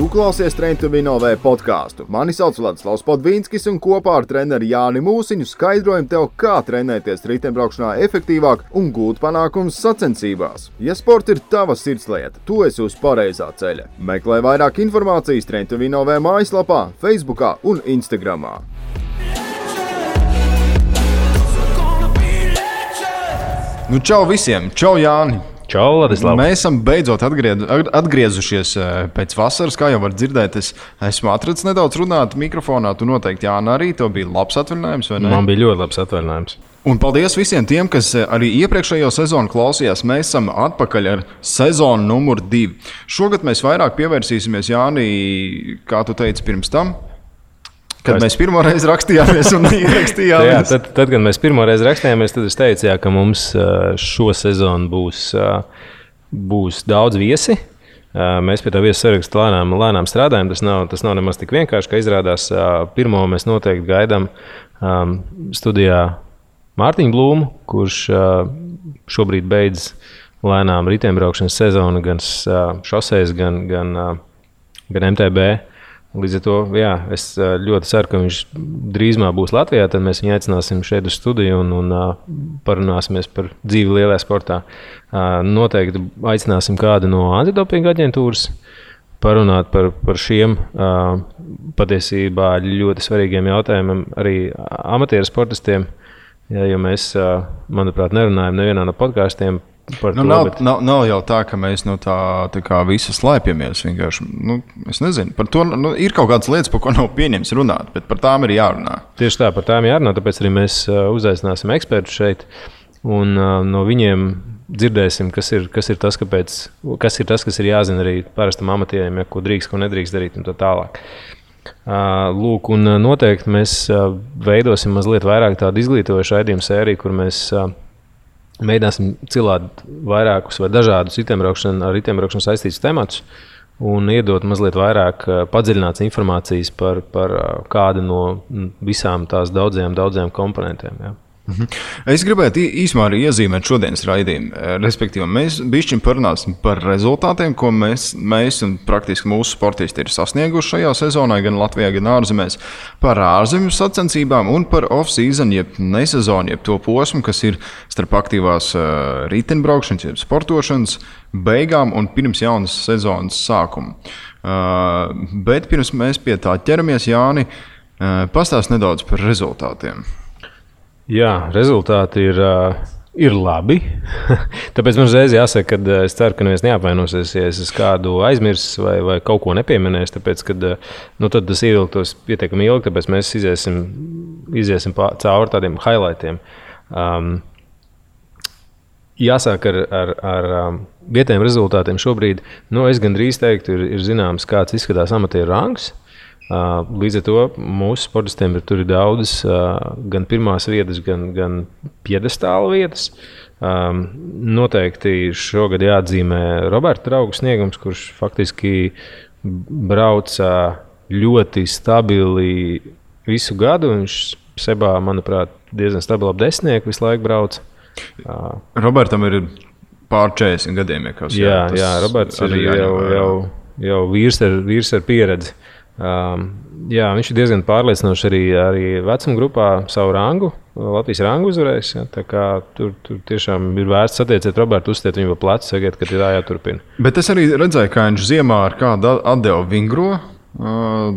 klausies Train to Win OV podcastu. Mani sauc Vladislavs Podvīnskis un kopā ar treneri Jāni Mūsiņu skaidrojam tev, kā trenēties riteņbraukšanā efektīvāk un gūt panākumus sacensībās. Ja sports ir tava sirdslieta, tu esi uz pareizā ceļa. Meklē vairāk informācijas Train to Win OV mājaslapā, Facebookā un Instagramā. Nu, čau visiem! Čau, Jāni! Čau, Ladislav! Mēs esam beidzot atgriezušies pēc vasaras, kā jau var dzirdēt. Es esmu atrads nedaudz runāt mikrofonā. Tu noteikti, Jāna, arī tev bija labs atvaļinājums, vai ne? Man bija ļoti labs atvaļinājums. Un paldies visiem tiem, kas arī iepriekšējo sezonu klausījās. Mēs esam atpakaļ ar sezonu numur 2. Šogad mēs vairāk pievērsīsimies, Jāni, kā tu teici pirms tam. Kad mēs pirmoreiz rakstījāmies un ierakstījāmies. Jā, tad, kad mēs pirmoreiz rakstījāmies, tad es teicu, jā, ka mums šo sezonu būs daudz viesi. Mēs pie tā viesu sarakstu lēnām strādājam. Tas nav nemaz tik vienkārši, ka izrādās pirmo mēs noteikti gaidām studijā Mārtiņu Blūmu, kurš šobrīd beidz lēnām riteņbraukšanas sezonu gan šoseis, gan MTB. Līdz ar to, jā, es ļoti ceru, ka viņš drīzumā būs Latvijā. Tad mēs viņu aicināsim šeit uz studiju un parunāsimies par dzīvi lielajā sportā. Noteikti aicināsim kādu no antidopinga aģentūras parunāt par šiem patiesībā ļoti svarīgiem jautājumiem arī amatieru sportistiem. Jo mēs, manuprāt, nerunājam nevienā no podkāstiem. Nav jau tā, ka mēs no tā kā visi slēpjamies. Es nezinu, par to ir kaut kādas lietas, par ko nav pieņems runāt, bet par tām ir jārunā. Tieši tā, par tām jārunā, tāpēc arī mēs uzaicināsim ekspertus šeit un no viņiem dzirdēsim, kas ir tas, kas ir jāzina arī parastam amatieriem, ko drīkst, ko nedrīkst darīt un tā tālāk. Lūk, un noteikti mēs veidosim mazliet vairāk tādu izglītojošu raidījumu sēriju, kur mēs mēģināsim cilāt vairākus vai dažādus ar riteņbraukšanu saistītus tematus un iedot mazliet vairāk padziļināts informācijas par kādu no visām tās daudzajām komponentiem. Jā. Es gribētu īsumā arī iezīmēt šodienas raidījumu. Respektīvi, mēs bišķiņ parunāsim par rezultātiem, ko mēs un praktiski mūsu sportisti ir sasnieguši šajā sezonā, gan Latvijā, gan ārzemēs, par ārzemju sacensībām un par off-season, jeb nesezonu, jeb to posmu, kas ir starp aktīvās riteņbraukšanas, jeb sportošanas beigām un pirms jaunas sezonas sākuma. Bet pirms mēs pie tā ķeramies, Jāni, pastāst nedaudz par rezultātiem. Jā, rezultāti ir labi. Tāpēc man uzreiz jāsaka, ka es ceru, ka neviens neapvainosies, ja es kādu aizmirsis vai kaut ko nepieminēs, tāpēc, ka tad tas ievilktos pietiekami ilgi, tāpēc mēs iziesim cauri tādiem highlightiem. Jāsāk ar vietējiem rezultātiem šobrīd. Es gandrīz teiktu, ir zināms, kāds izskatās amatieru rangs. Līdz ar to mūsu sportistiem tur ir daudzas gan pirmās vietas, gan piedestāla vietas. Noteikti šogad jāatzīmē Roberta draugu sniegums, kurš faktiski brauca ļoti stabili visu gadu. Viņš sebā, manuprāt, diezgan stabili ap 10 visu laiku brauca. Robertam ir pār 40 gadiem. Jā, Roberts ir jau vīrs ar pieredzi. Viņš ir diezgan pārliecinoši arī vecuma grupā savu rangu, Latvijas rangu uzvarējis. Ja, tā kā tur tiešām ir vērts satiecēt Robertu, uzstiet viņu pa plecu, sakiet, ka ir jāturpina. Bet es arī redzēju, kā viņš ziemā ar kādu atdevu vingro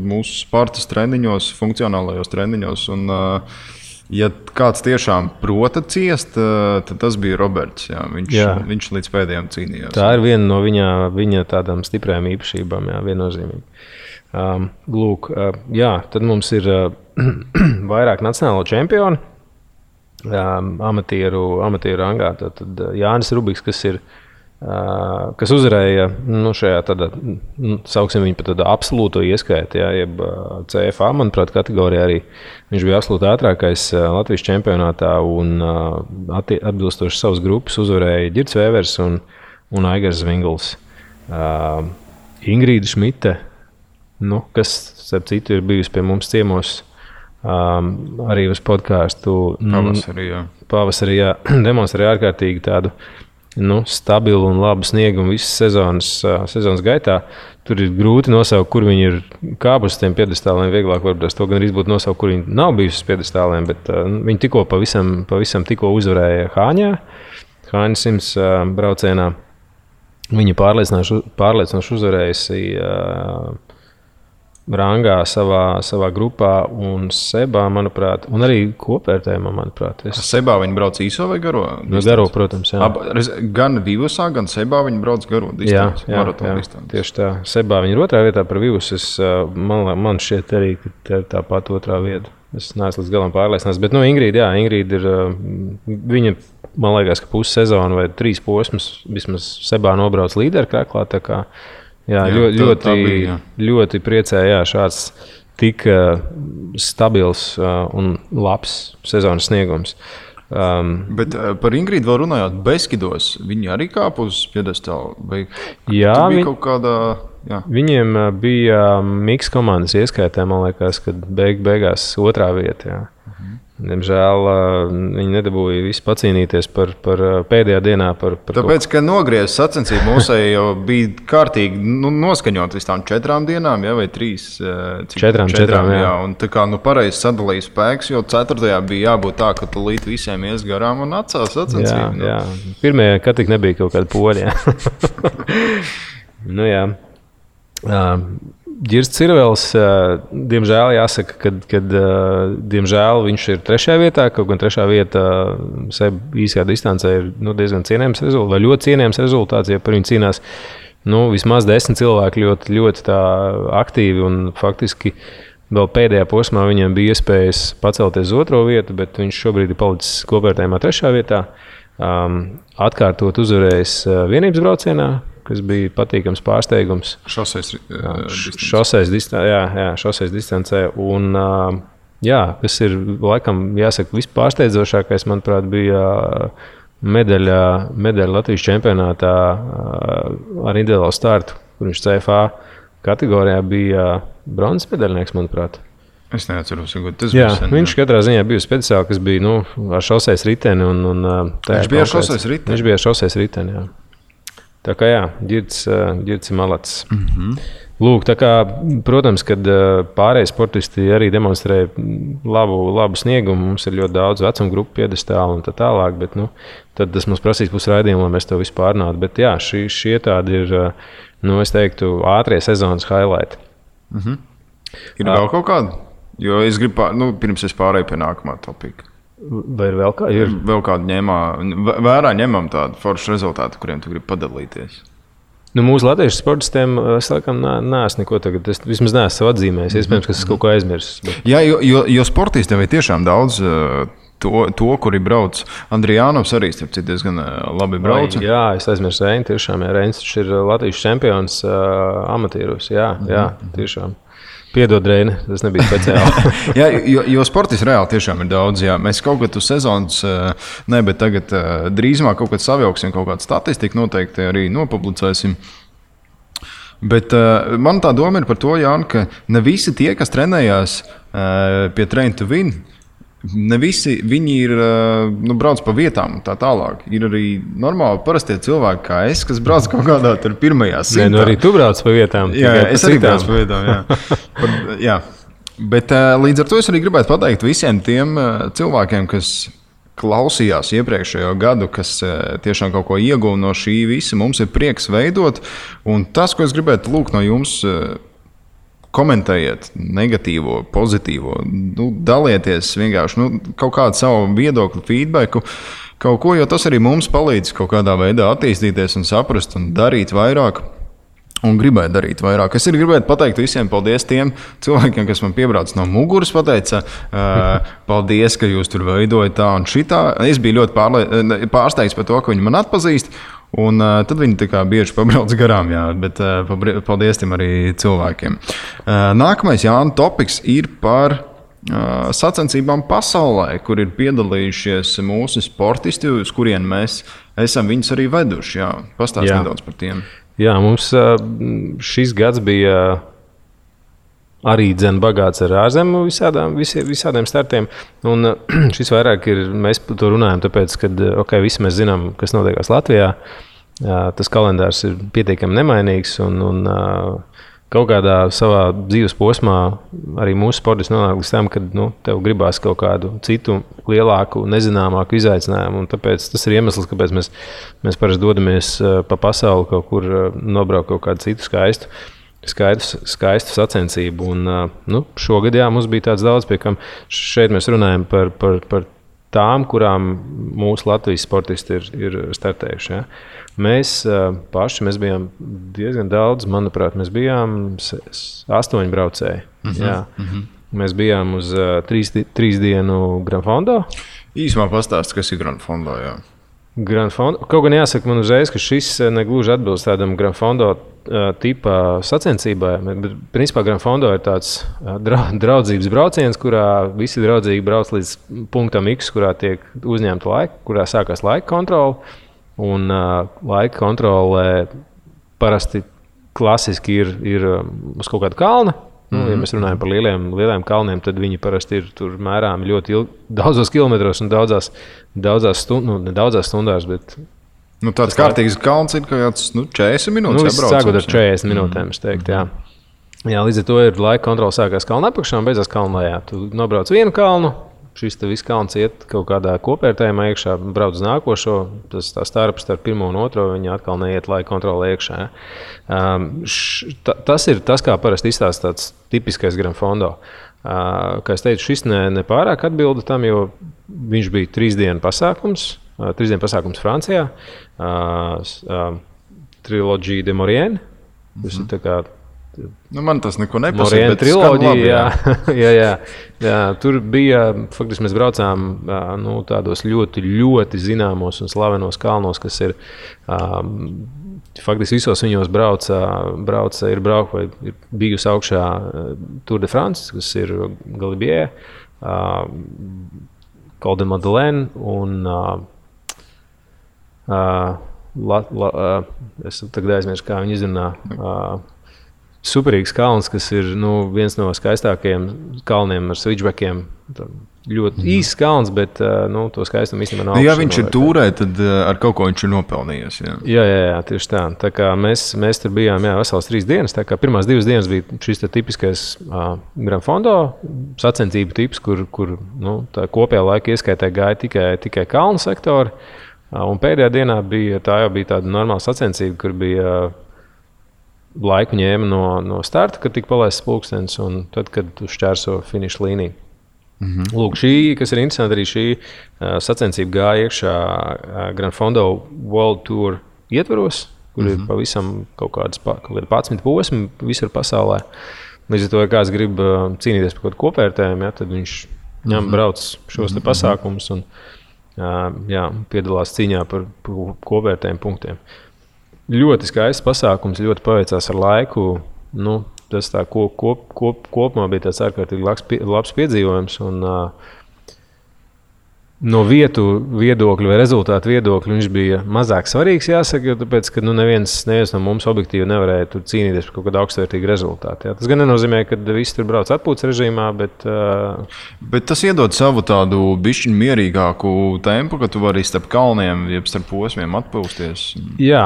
mūsu sportas treniņos, funkcionālajos treniņos. Un, ja kāds tiešām prota ciest, tad tas bija Roberts. Jā. Viņš līdz pēdējiem cīnījās. Tā ir viena no viņa tādām stiprajām īpašībām, jā, viennozīmīgi. Tad mums ir vairāk nacionālo čempionu amatieru rangā. Tad Jānis Rubiks, kas uzvarēja šajā tādā, sauksim viņu par tādu absolūto ieskaitu, jeb CFA, manuprāt, kategorijā arī viņš bija absolūti ātrākais Latvijas čempionātā un atbilstoši savas grupas uzvarēja Ģirds Vēvers un Aigars Zvingls. Ingrīda Šmite, kas, starp citu, ir bijusi pie mums ciemos arī uz podcastu. Pavasarī, jā. Demonstrēja ārkārtīgi tādu stabilu un labu sniegumu visas sezonas gaitā. Tur ir grūti nosaukt, kur viņi ir kāpuši uz tiem piedestāliem. Vieglāk varbūt to gan būtu nosaukt, kur viņi nav bijuši uz piedestāliem. Bet viņi tikko pavisam tikko uzvarēja Hāņa 100 braucienā. Viņa pārliecinoši uzvarējusi rangā savā grupā un Sebā, manuprāt, un arī kopvērtējumā, manuprāt. Sebā viņi brauc īso vai garo? Garo, protams, jā. Gan Vivusā, gan Sebā viņi brauc garo distanci, maratona distanci. Tieši tā. Sebā viņi ir otrā vietā par Vivusu. Man šķiet arī, ka tāpat otrā vieta. Es neesmu līdz galam pārliecināts. Bet Ingrīda ir, viņa, man liekas, ka pussezonu vai 3 posmus vismaz Sebā nobrauc līderu kreklā, tā kā ļoti priecēja šāds tik stabils un labs sezonas sniegums. Bet par Ingrīdu vēl runājot, Beskidos viņi arī kāpa uz piedestālu? Jā, kaut kādā... Jā. Viņiem bija miks komandas ieskaitē, man liekas, kad beigās otrā vieta. Jā. Diemžēl viņi nedabūja visu pacīnīties par pēdējā dienā. Tāpēc, ka nogriezis sacensību mūsēji jau bija kārtīgi noskaņot vis tām 4 dienām, vai 3? 4, jā. Un tā kā pareizi sadalīja spēks, jo 4. bija jābūt tā, ka tu līdz visiem ies garām un atcās sacensību. Jā. Pirmajā, kad tik nebija kaut kāda poļa. Jā. Ģirs Cirvels, diemžēl jāsaka, ka diemžēl viņš ir 3. vietā, kaut gan 3. vieta īsajā distancē ir diezgan cienējams rezultāts, vai ļoti cienējams rezultāts, ja par viņu cīnās vismaz 10 cilvēki ļoti, ļoti tā aktīvi un faktiski vēl pēdējā posmā viņam bija iespējas pacelties uz 2. vietu, bet viņš šobrīd ir palicis kopvērtējumā 3. vietā, atkārtot uzvarējis vienības braucienā, kas bija patīkams pārsteigums. Šoseis distancē. Un, kas ir, laikam, jāsaka, vispārsteidzošākais, manuprāt, bija medaļa Latvijas čempionātā ar individuālu startu, kur viņš CFA kategorijā bija bronzas medaļnieks, manuprāt. Es neatceros, ka tas bija sen. Viņš katrā ziņā bija speciāli, kas bija ar šoseis riteni. Viņš bija ar šoseis riteni? Viņš bija ar šoseis riteni, jā. Tā kā Ģirds ir malacis. Lūk, tā kā, protams, kad pārējie sportisti arī demonstrē labu sniegumu, mums ir ļoti daudz vecuma grupu piedestālu un tā tālāk, bet tad tas mums prasīs pusraidījumu, lai mēs to visu pārnātu. Bet jā, šie tādi ir, es teiktu, ātrie sezonas highlighti. Ir vēl kaut kāda? Jo es gribu, pirms es pārēju pie nākamā topika. Vai ir vēl kāda? Ir vēl kāda vērā ņemam tādu foršu rezultātu, kuriem tu gribi padalīties? Mūsu latviešu sportistiem es laikam neesmu neko tagad, es vismaz neesmu savu atzīmējis, iespējams, ka es kaut ko aizmirsis. Bet... Jā, jo sportistiem ir tiešām daudz to kuri brauc. Andrijānovs arī, starp citu, diezgan labi brauc. Jā, es aizmirsu Reini, tiešām, Reinis ir Latvijas čempions amatieros, jā, tiešām. Piedod, Reini, tas nebija speciāli. Jā, jo sportisti reāli tiešām ir daudz. Jā. Mēs kaut kad uz sezonas, bet tagad drīzumā kaut kad savilksim, kaut kādu statistiku noteikti arī nopublicēsim. Bet man tā doma ir par to, Jāni, ka ne visi tie, kas trenējās pie Train to Win, ne visi viņi ir brauc pa vietām un tā tālāk. Ir arī normāli parastie cilvēki kā es, kas brauc kaut kādā tur pirmajā simtā. Arī tu brauc pa vietām. Jā, es arī brauc pa vietām, jā. Bet līdz ar to es arī gribētu pateikt visiem tiem cilvēkiem, kas klausījās iepriekšējo gadu, kas tiešām kaut ko ieguva no šī visa. Mums ir prieks veidot, un tas, ko es gribētu lūgt no jums, komentējiet negatīvo, pozitīvo, dalieties vienkārši kaut kādu savu viedokli, feedbacku, kaut ko, jo tas arī mums palīdz kaut kādā veidā attīstīties un saprast un darīt vairāk. Un gribētu darīt vairāk. Es arī gribētu pateikt visiem paldies tiem cilvēkiem, kas man piebrauc no muguras, pateica, paldies, ka jūs tur veidojat tā un šitā. Es biju ļoti pārsteigts par to, ka viņi man atpazīst. Un tad viņi tā kā bieži pabrauc garām, jā, bet paldies tiem arī cilvēkiem. Nākamais, Jāni, topiks ir par sacensībām pasaulē, kur ir piedalījušies mūsu sportisti, uz kurien mēs esam viņus arī veduši. Jā, pastāst nedaudz par tiem. Jā, mums šis gads bija arī bagāts ar ārzemju visādiem startiem. Un šis vairāk ir, mēs par to runājam, tāpēc, ka visi mēs zinām, kas notiekās Latvijā. Tas kalendārs ir pietiekami nemainīgs un kaut kādā savā dzīves posmā arī mūsu sportisti nonāk līdz tam, ka tev gribās kaut kādu citu lielāku, nezināmāku izaicinājumu. Un tāpēc tas ir iemesls, kāpēc mēs parasti dodamies pa pasauli kaut kur nobraukt kaut kādu citu skaistu sacensību. Un, šogad mums bija tāds daudz, pie kam šeit mēs runājam par tām, kurām mūsu Latvijas sportisti ir startējuši. Ja? Mēs bijām diezgan daudz, manuprāt, mēs bijām 8 braucēji. Mēs bijām uz 3 dienu Gran Fondo. Īsumā pastāst, kas ir Gran Fondo, jā. Gran Fondo. Kaut gan jāsaka man uzreiz, ka šis negluži atbilst tādam Gran Fondo tipa sacensībai. Bet, principā, Gran Fondo ir tāds draudzības brauciens, kurā visi draudzīgi brauc līdz punktam X, kurā tiek uzņemta laika, kurā sākās laika kontrole. Un laika kontrolē parasti klasiski ir uz kaut kāda kalna. Ja mēs runājam par lieliem kalniem, tad viņi parasti ir tur mērām ļoti daudzos kilometros un daudzās stundās. Bet tāds kārtīgs kalns ir kaut kāds 40 minūtes. Sākot ar 40 minūtēm, es teiktu, jā. Jā, līdz ar to ir laika kontrole sākās kalna apakšā un beidzās kalna lejā. Tu nobrauc vienu kalnu. Šis viss kalns iet kaut kādā kopērtējumā iekšā, brauc uz nākošo. Tā starp 1 un 2 viņi atkal neiet laika kontrolē iekšā. Tas ir tas, kā parasti izstāsta tāds tipiskais Gran Fondo. Kā es teicu, šis nepārāk atbilda tam, jo viņš bija 3 dienu pasākums. 3 dienu pasākums Francijā. Triloģija de Maurienne. Tas ir tā kā man tas neko nepasaka, bet triloģija, jā. Tur bija, faktiski mēs braucām tādos ļoti, ļoti zināmos un slavenos kalnos, kas ir faktiski visos viņos ir bijusi augšā Tour de France, kas ir Galibier, Col de Madeleine un es tagad aizmirsu, kā viņi izrunā. Superīgs kalns, kas ir viens no skaistākajiem kalniem ar switchbackiem. Ļoti īsts kalns, bet to skaistumu īstenībā nav. Ja viņš ir tūrē, tad ar kaut ko viņš ir nopelnījies. Jā, tieši tā. Tā kā mēs tur bijām vesels 3 dienas. Tā kā pirmās 2 dienas bija šis tipiskais Gran Fondo sacensību tips, kur tā kopējā laika ieskaitē gāja tikai kalnu sektori. Un pēdējā dienā bija tāda normāla sacensība, kur bija laiku ņēma no starta, kad tika palaists pulkstenis, un tad, kad tu šķērso finiša līniju. Lūk, šī, kas ir interesanti, arī šī sacensība gāja iekšā Gran Fondo World Tour ietvaros, kur ir pavisam kaut kāds 11 posmi visur pasaulē. Līdz ar to, ja kāds grib cīnīties par kaut kopvērtējumu, tad viņš brauc šos te pasākumus un piedalās cīņā par kopvērtējumu punktiem. Ļoti skaists pasākums, ļoti paveicās ar laiku. Tas tā kopumā bija tāds ārkārtīgi labs piedzīvojums. Un, no vietu viedokļu vai rezultātu viedokļu viņš bija mazāk svarīgs, jāsaka, jo tāpēc, ka neviens no mums objektīvi nevarēja tur cīnīties par kaut kādu augstvērtīgu rezultātu. Jā. Tas gan nenozīmē, ka visi tur brauc atpūtas režīmā, bet tas iedod savu tādu bišķiņu mierīgāku tempu, ka tu vari starp kalniem, jeb starp posmiem atpūsties. Jā,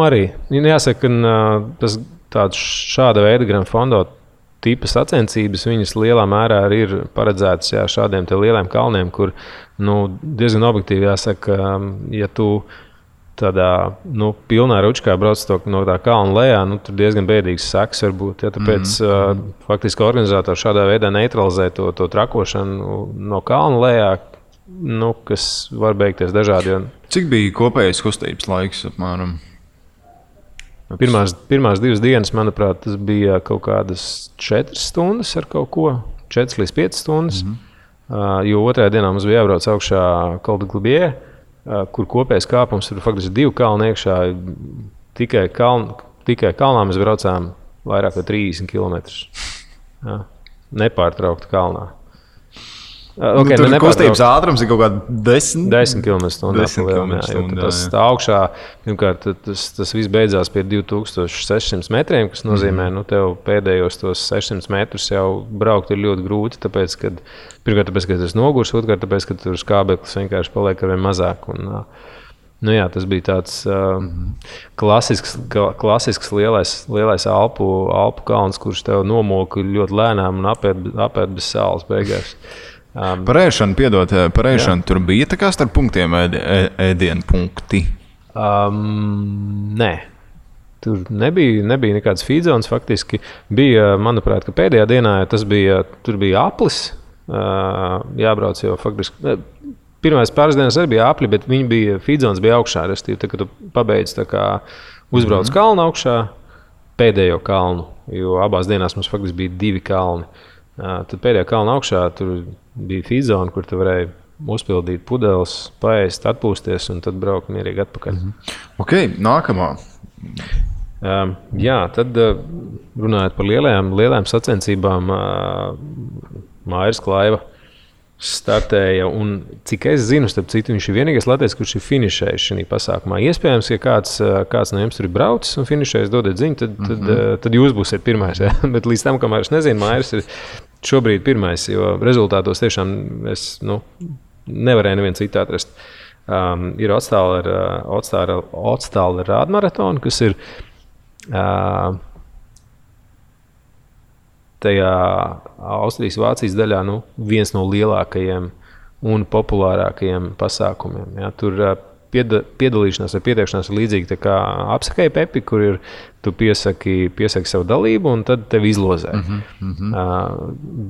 arī. Jāsaka, ka šāda veida Gran Fondo tipa sacensības, viņas lielā mērā arī ir paredzētas šādiem te lieliem kalniem, kur diezgan objektīvi jāsaka, ja tu tādā pilnā ručkā brauc no tā kalna lejā, tur diezgan bēdīgs seks var būt. Ja, tāpēc faktiski organizatori šādā veidā neutralizē to trakošanu no kalna lejā, kas var beigties dažādi. Cik bija kopējais kustības laiks apmēram? Pirmās 2 dienas, manuprāt, tas bija kaut kādas 4 stundas ar kaut ko, 4 līdz 5 stundas. Jo otrajā dienā mums bija jābrauc augšā Col de Galibier, kur kopējais kāpums tur faktiski 2 kalni iekšā. Tikai kalnā mēs braucām vairāk kā 30 km. Nepārtraukti kalnā. Okay, tur kustības ātrums ir kaut kāda 10 km/h. Tas tā augšā, pirmkārt, tas viss beidzās pie 2600 metriem, kas nozīmē, tev pēdējos tos 600 metrus jau braukt ir ļoti grūti, tāpēc, ka tas nogurs, otrkārt, tāpēc, ka tur skābeklis vienkārši paliek arvien mazāk. Tas bija tāds klasisks lielais Alpu kalns, kurš tev nomoka ļoti lēnām un apēd bez sāls beigās. Par ēšanu tur bija tā kā starp punktiem ēdienu punkti? Nē. Tur nebija nekāds feedzons. Faktiski bija, manuprāt, ka pēdējā dienā tur bija aplis. Jābrauc jau faktiski. Pirmās pāris dienas arī bija apli, bet feedzons bija augšā. Restīvi, kad tu pabeidz uzbrauc kalnu augšā, pēdējo kalnu, jo abās dienās mums faktiski bija 2 kalni. Tad pēdējā kalna augšā tur bija feedzona, kur tu varēji uzpildīt pudeles, paēst, atpūsties un tad braukt mierīgi atpakaļ. Ok, nākamā. Tad runājot par lielajām sacensībām, Mairis Klaiva startēja, un cik es zinu, starp citu, viņš ir vienīgais latviečs, kurš ir finišējis šajā pasākumā. Iespējams, ja kāds no jums tur ir braucis un finišējis, dodiet ziņu, tad jūs būsiet pirmais. Ja? Bet līdz tam, kamēr es nezinu, Mairis ir šobrīd pirmais, jo rezultātos tiešām es nevarēju nevienu citu atrast. Ir Otstāla rādmaratona, kas ir tajā Austrijas-Vācijas daļā viens no lielākajiem un populārākajiem pasākumiem. Ja? Tur piedalīšanās vai pieteikšanās ir līdzīgi tā kā apsakai Pepi, kur tu piesaki savu dalību un tad tevi izlozē.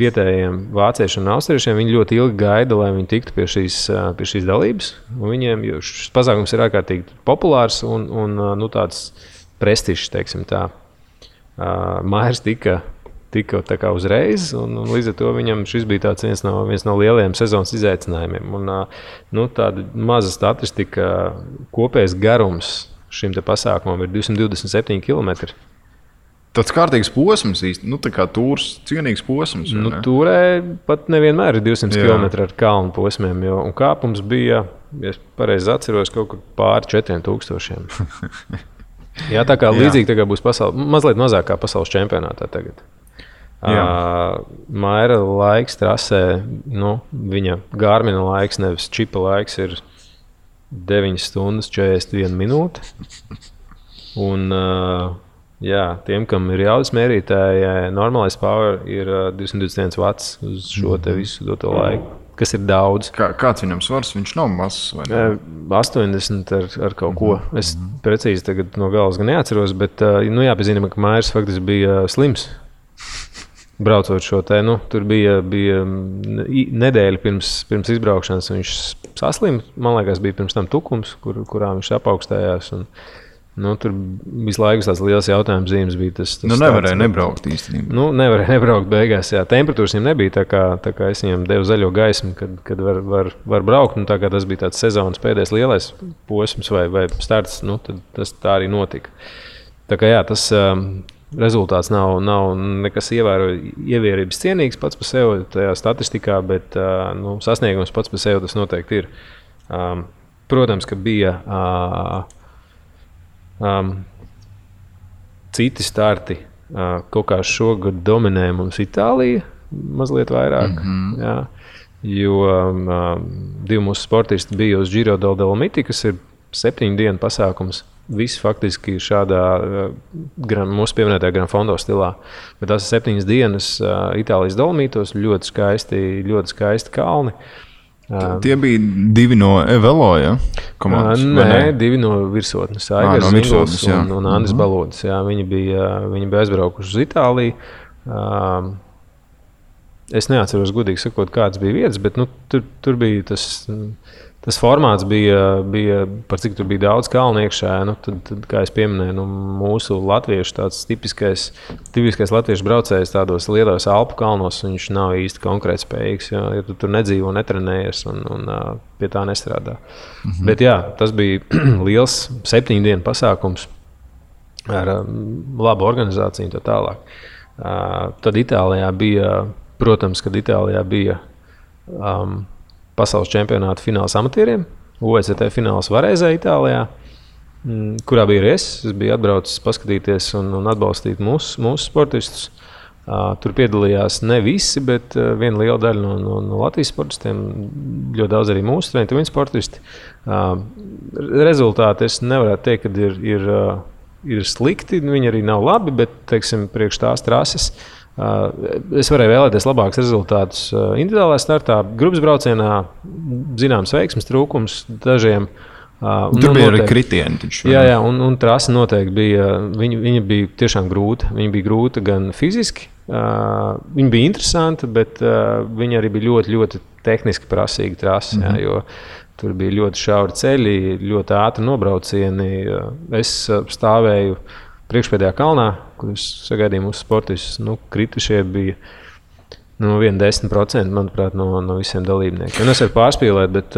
Vietējiem vāciešiem un austriešiem viņi ļoti ilgi gaida, lai viņi tiktu pie šīs dalības. Viņiem šis pasākums ir ārkārtīgi populārs un tāds prestižs, teiksim tā. Mairis tika tā kā uzreiz, un līdz ar to viņam šis bija viens no lielajiem sezonas izaicinājumiem. Tāda maza statistika, kopējais garums šim te pasākumam ir 227 km. Tāds kārtīgs posms īsti, tā kā tūrs, cienīgs posms. Tūrē pat nevienmēr ir 200 km ar kalnu posmiem, un kāpums bija, ja es pareizi atceros, kaut kur pāri 4000. Jā, tā kā līdzīgi tā kā būs mazliet mazāk kā pasaules čempionātā tagad. Maira laiks trasē, viņa Garmina laiks, nevis čipa laiks, ir 9 stundas 41 minūte. Un, tiem, kam ir jaudas mērītāji, normālais power ir 221 watts uz šo te visu doto laiku, kas ir daudz. Kāds viņam svars? Viņš nav mazs, vai ne? 80 ar kaut ko. Es precīzi tagad no galas gan neatceros, bet jāpiezīmē, ka Mairis faktiski bija slims. Braucot šo te, tur bija nedēļa pirms izbraukšanas, viņš saslima. Man liekas, bija pirms tam tukums, kurā viņš apaugstējās. Tur visu laiku tās liels jautājums zīmes bija tas nevarēja nebraukt īstenībā. Nevarēja nebraukt beigās, jā. Temperatūras viņam nebija, tā kā es viņam devu zaļo gaismu, kad var braukt. Tā kā tas bija tāds sezonas pēdējais lielais posms vai starts, tad tas tā arī notika. Tā kā tas rezultāts nav nekas ievērības cienīgs pats par sevi tajā statistikā, bet sasniegums pats par sevi tas noteikti ir. Protams, ka bija citi starti. Kaut kā šogad dominē mums Itālija mazliet vairāk. Jā, jo 2 mūsu sportisti bija uz Giro del Dolomiti, kas ir 7 dienu pasākums. Viss faktiski šādā mūsu pieminētajā Gran Fondo stilā. Bet tās ir 7 dienas Itālijas Dolomītos, ļoti skaisti kalni. Tie bija 2 no Evelo, ja? Komandas? Nē, 2 no virsotnes. Aigars Zinguls un Andris Balodis. Jā, viņi bija aizbraukuši uz Itāliju. Es neatceros, godīgi sakot, kāds bija vietas, bet tur bija tas formāts bija par cik tur bija daudz kalnu iekšā. Tad, kā es pieminēju, mūsu latviešu tāds tipiskais latviešu braucējs tādos lielos Alpu kalnos, viņš nav īsti konkurētspējīgs, ja tu tur nedzīvo, netrenējies un pie tā nestrādā. Bet tas bija liels 7 dienu pasākums ar labu organizāciju un tā tālāk. Tad Itālijā bija, protams, kad Itālijā bija pasaules čempionāta fināls amatieriem, OECT fināls Varēzē, Itālijā, kurā bija arī es. Es biju atbraucis paskatīties un atbalstīt mūsu sportistus. Tur piedalījās ne visi, bet viena liela daļa no Latvijas sportistiem, ļoti daudz arī mūsu treniņu sportisti. Rezultāti es nevarētu teikt, ka ir slikti, viņi arī nav labi, bet, teiksim, priekš tās trases es varēju vēlēties labākus rezultātus individuālajā startā, grupas braucienā, zināms veiksmes trūkums dažiem. Tur bija arī kritieni. Jā, un trase noteikti bija. Viņa bija tiešām grūta. Viņa bija grūta gan fiziski, viņa bija interesanta, bet viņa arī bija ļoti, ļoti tehniski prasīga trase. Jā, jo tur bija ļoti šauri ceļi, ļoti ātri nobraucieni. Es stāvēju priekšpēdējā kalnā, kur es sagaidīju mūsu sportistus. Kritušie bija 1-10%, manuprāt, no visiem dalībniekiem. Es varu pārspīlēt, bet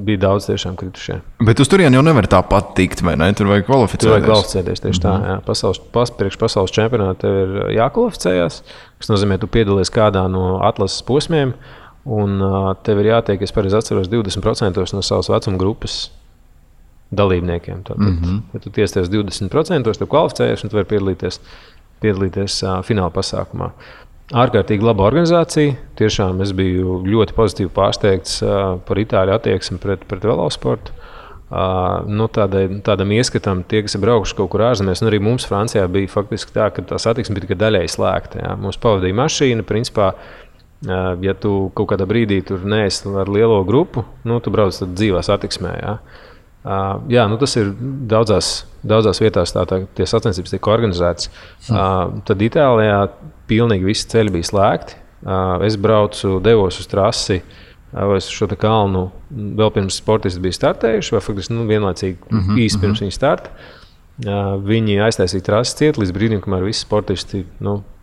bija daudz tiešām kritušie. Bet uz turieni jau nevar tāpat tikt, vai ne? Tur vajag kvalificēties. Tur vajag kvalificēties tieši tā. Jā. Priekš pasaules čempionāta tev ir jākvalificējās, kas nozīmē, tu piedalies kādā no atlases posmiem, un tev ir jātiek, es pareizi atceros, 20% no savas vecuma grupas dalībniekiem. Ja tu tiesties 20%, tu kvalificējies, un tu vari piedalīties fināla pasākumā. Ārkārtīgi laba organizācija. Tiešām es biju ļoti pozitīvi pārsteigts par Itāļu attieksmi pret velosportu. Tādam ieskatam, tie, kas ir braukuši kaut kur ārzemēs, un arī mums Francijā bija faktiski tā, ka tā satiksme bija tikai daļēji slēgta. Jā. Mums pavadīja mašīna, principā, ja tu kaut kādā brīdī tur neesi ar lielo grupu, tu brauc tad dzīvā satiksmē. Jā. Tas ir daudzās vietās, tie sacensības tiek organizētas. Tad Itālijā pilnīgi visi ceļi bija slēgti. Es devos uz trasi, vai uz šo kalnu vēl pirms sportisti bija startējuši, vai faktiski vienlaicīgi īsi pirms viņa starta. Viņi aiztaisīja trasi ciet līdz brīdim, kamēr visi sportisti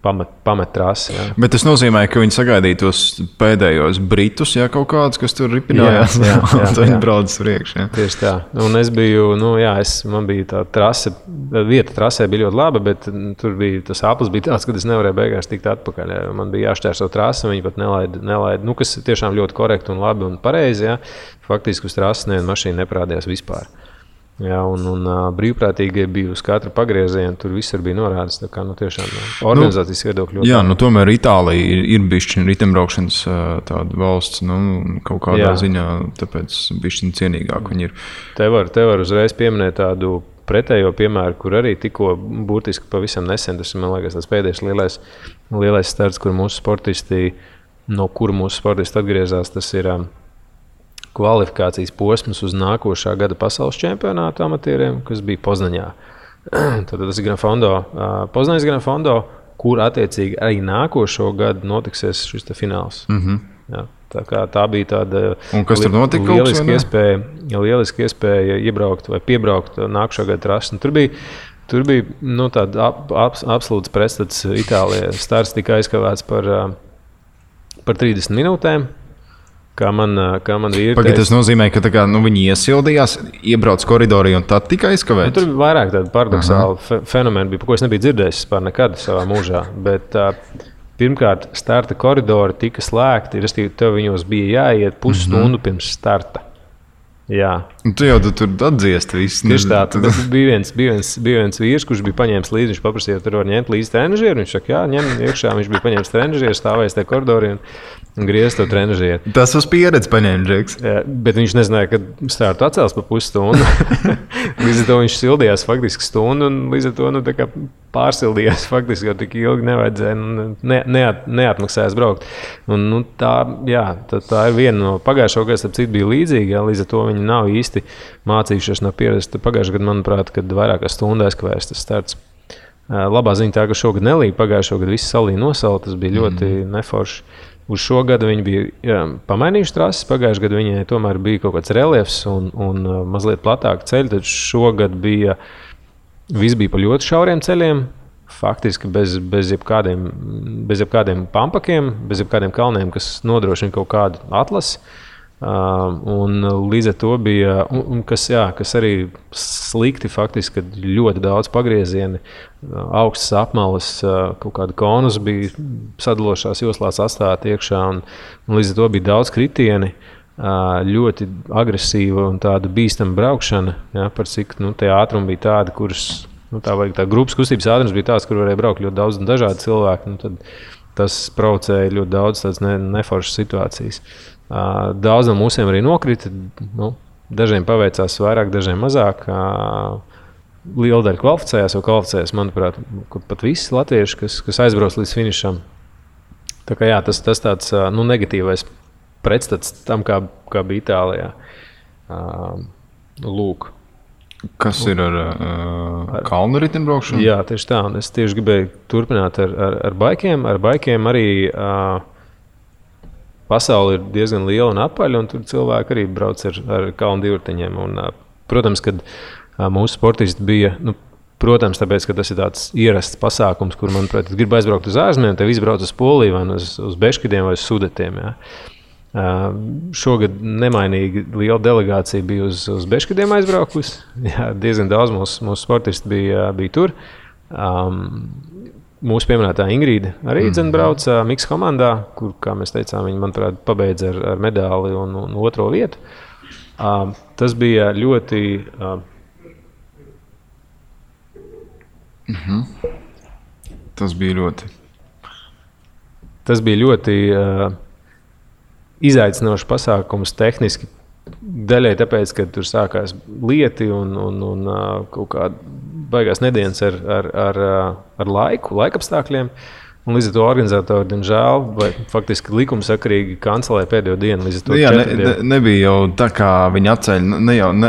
pamet trasi. Jā. Bet tas nozīmē, ka viņi sagaidīja tos pēdējos britus, kaut kādus, kas tur ripinājās. Tad viņi brauc priekš. Jā. Tieši tā. Un es biju, man bija tā trase, vieta trasē bija ļoti laba, bet tur bija tas aplis bija tāds, ka es nevarēju beigās tikt atpakaļ. Jā. Man bija jāšķērso trasi, viņi pat nelaida, kas tiešām ļoti korekti un labi un pareizi. Jā. Faktiski uz trases neviena mašīna neparādījās vispār. Jā, un brīvprātīgie bija uz katra pagrieziena, tur visur bija norādes. Tā kā tiešām organizācijas viedokļi ļoti. Jā, tomēr Itālija ir bišķiņa ritembraukšanas tāda valsts, kaut kādā ziņā, tāpēc bišķiņa cienīgāk viņi ir. Te var uzreiz pieminēt tādu pretējo piemēru, kur arī tikko burtiski pavisam nesen, tas man liekas tāds pēdējais lielais starts, kur mūsu sportisti atgriezās, tas ir kvalifikācijas posms uz nākošā gada pasaules čempionāta amatieriem, kas bija Poznaņā. Tad tas ir Poznaņas Gran Fondo, kur attiecīgi arī nākošo gadu notiksies šis fināls. Jā, tā bija tāda lieliska iespēja iebraukt vai piebraukt nākošā gada trasi. Tur bija tāda absolūts pretstats Itālijā. Starts tika aizkavēts par 30 minūtēm. Kā man vīri teica. Tas nozīmē, ka viņi iesildījās, iebrauc koridorī un tad tika aizkavēts? Tur bija vairāk tādu paradoxālu fenomenu, ko es nebiju dzirdējis vispār nekad savā mūžā. Bet pirmkārt, starta koridori tika slēgti, respektīvi tev viņos bija jāiet pusstundu pirms starta. Jā. Tu jau tur atdziest visu. Tieši tā, bija viens vīrs, kurš bija paņēmis līdzi, viņš paprasīja, tur var ņemt līdzi trenažieru, viņš saka, jā, ņem iekšā, viņš bija paņēmis trenažieru, stāvējis tajā koridorī un griez to trenažieru. Tas uz pieredzi paņēma, Džeks. Jā, bet viņš nezināja, ka startu atcels pa pusstundu. Līdz ar to viņš sildījās faktiski stundu un līdz ar to pārsildījās faktiski, jo tik ilgi nevajadzēja, neatmaksājās braukt. Un, tā ir viena no pagājušo gadu, starp citu bija līdzīga, līdz ar to viņi nav īsti mācījušies no pieredzes. Pagājušajā gadā, manuprāt, kad vairāk kā stundu aizkavējas tas starts. Labā ziņa tā, ka šogad nelīja, pagājušo gadu visi salīja nosala, tas bija ļoti neforši. Uz šo gadu viņi bija pamainījuši trases, pagājušajā gadā viņai tomēr bija kaut kāds reliefs un mazliet platāki ceļi, tad šogad viss bija pa ļoti šauriem ceļiem, faktiski bez jebkādiem pampakiem, bez jebkādiem kalniem, kas nodrošina kaut kādu atlasi. Un līdz ar to bija, kas arī slikti faktiski, kad ļoti daudz pagriezieni, augstas apmalas, kaut kāda konus bija sadalošās joslās atstāti iekšā, un līdz ar to bija daudz kritieni, ļoti agresīva un tāda bīstama braukšana, ja, par cik tie ātrumi bija tādi, kuras, tā grupas kustības ātrums bija tāds, kur varēja braukt ļoti daudz un dažādi cilvēki, tad tas provocēja ļoti daudz tādas neforšas situācijas. Daudz no mūsiem arī nokrita. Dažiem paveicās vairāk, dažiem mazāk. Liela daļa kvalificējās, manuprāt, pat visi latvieši, kas aizbrauc līdz finišam. Tā kā tas tāds negatīvais pretstats tam, kā bija Itālijā. Lūk. Kas ir ar kalnu riteņbraukšanu? Jā, tieši tā. Un es tieši gribēju turpināt ar baikiem. Ar baikiem arī pasaule ir diezgan liela un apaļa, un tur cilvēki arī brauc ar kalnu divriteņiem. Protams, kad mūsu sportisti bija, protams, tāpēc, ka tas ir tāds ierasts pasākums, kur, manuprāt, gribu aizbraukt uz ārzemēm, te visi brauc uz Poliju vai uz Beškidiem vai uz Sudetiem. Jā. Šogad nemainīgi liela delegācija bija uz Beškidiem aizbraukusi. Jā, diezgan daudz mūsu sportisti bija tur. Mūsu pieminētā Ingrīda arī brauca Miks komandā, kur, kā mēs teicām, viņa, manuprāt, pabeidza ar medāli un otro vietu. Tas bija ļoti... Tas bija ļoti izaicinošs pasākums tehniski. Daļai tāpēc, ka tur sākās lieti un kaut kāda baigās nedēļas ar laikapstākļiem. Un līdz ar to organizatori, diemžēl, vai faktiski likumsakarīgi kancelēja pēdējo dienu. Nebija jau tā, kā viņi atcēla,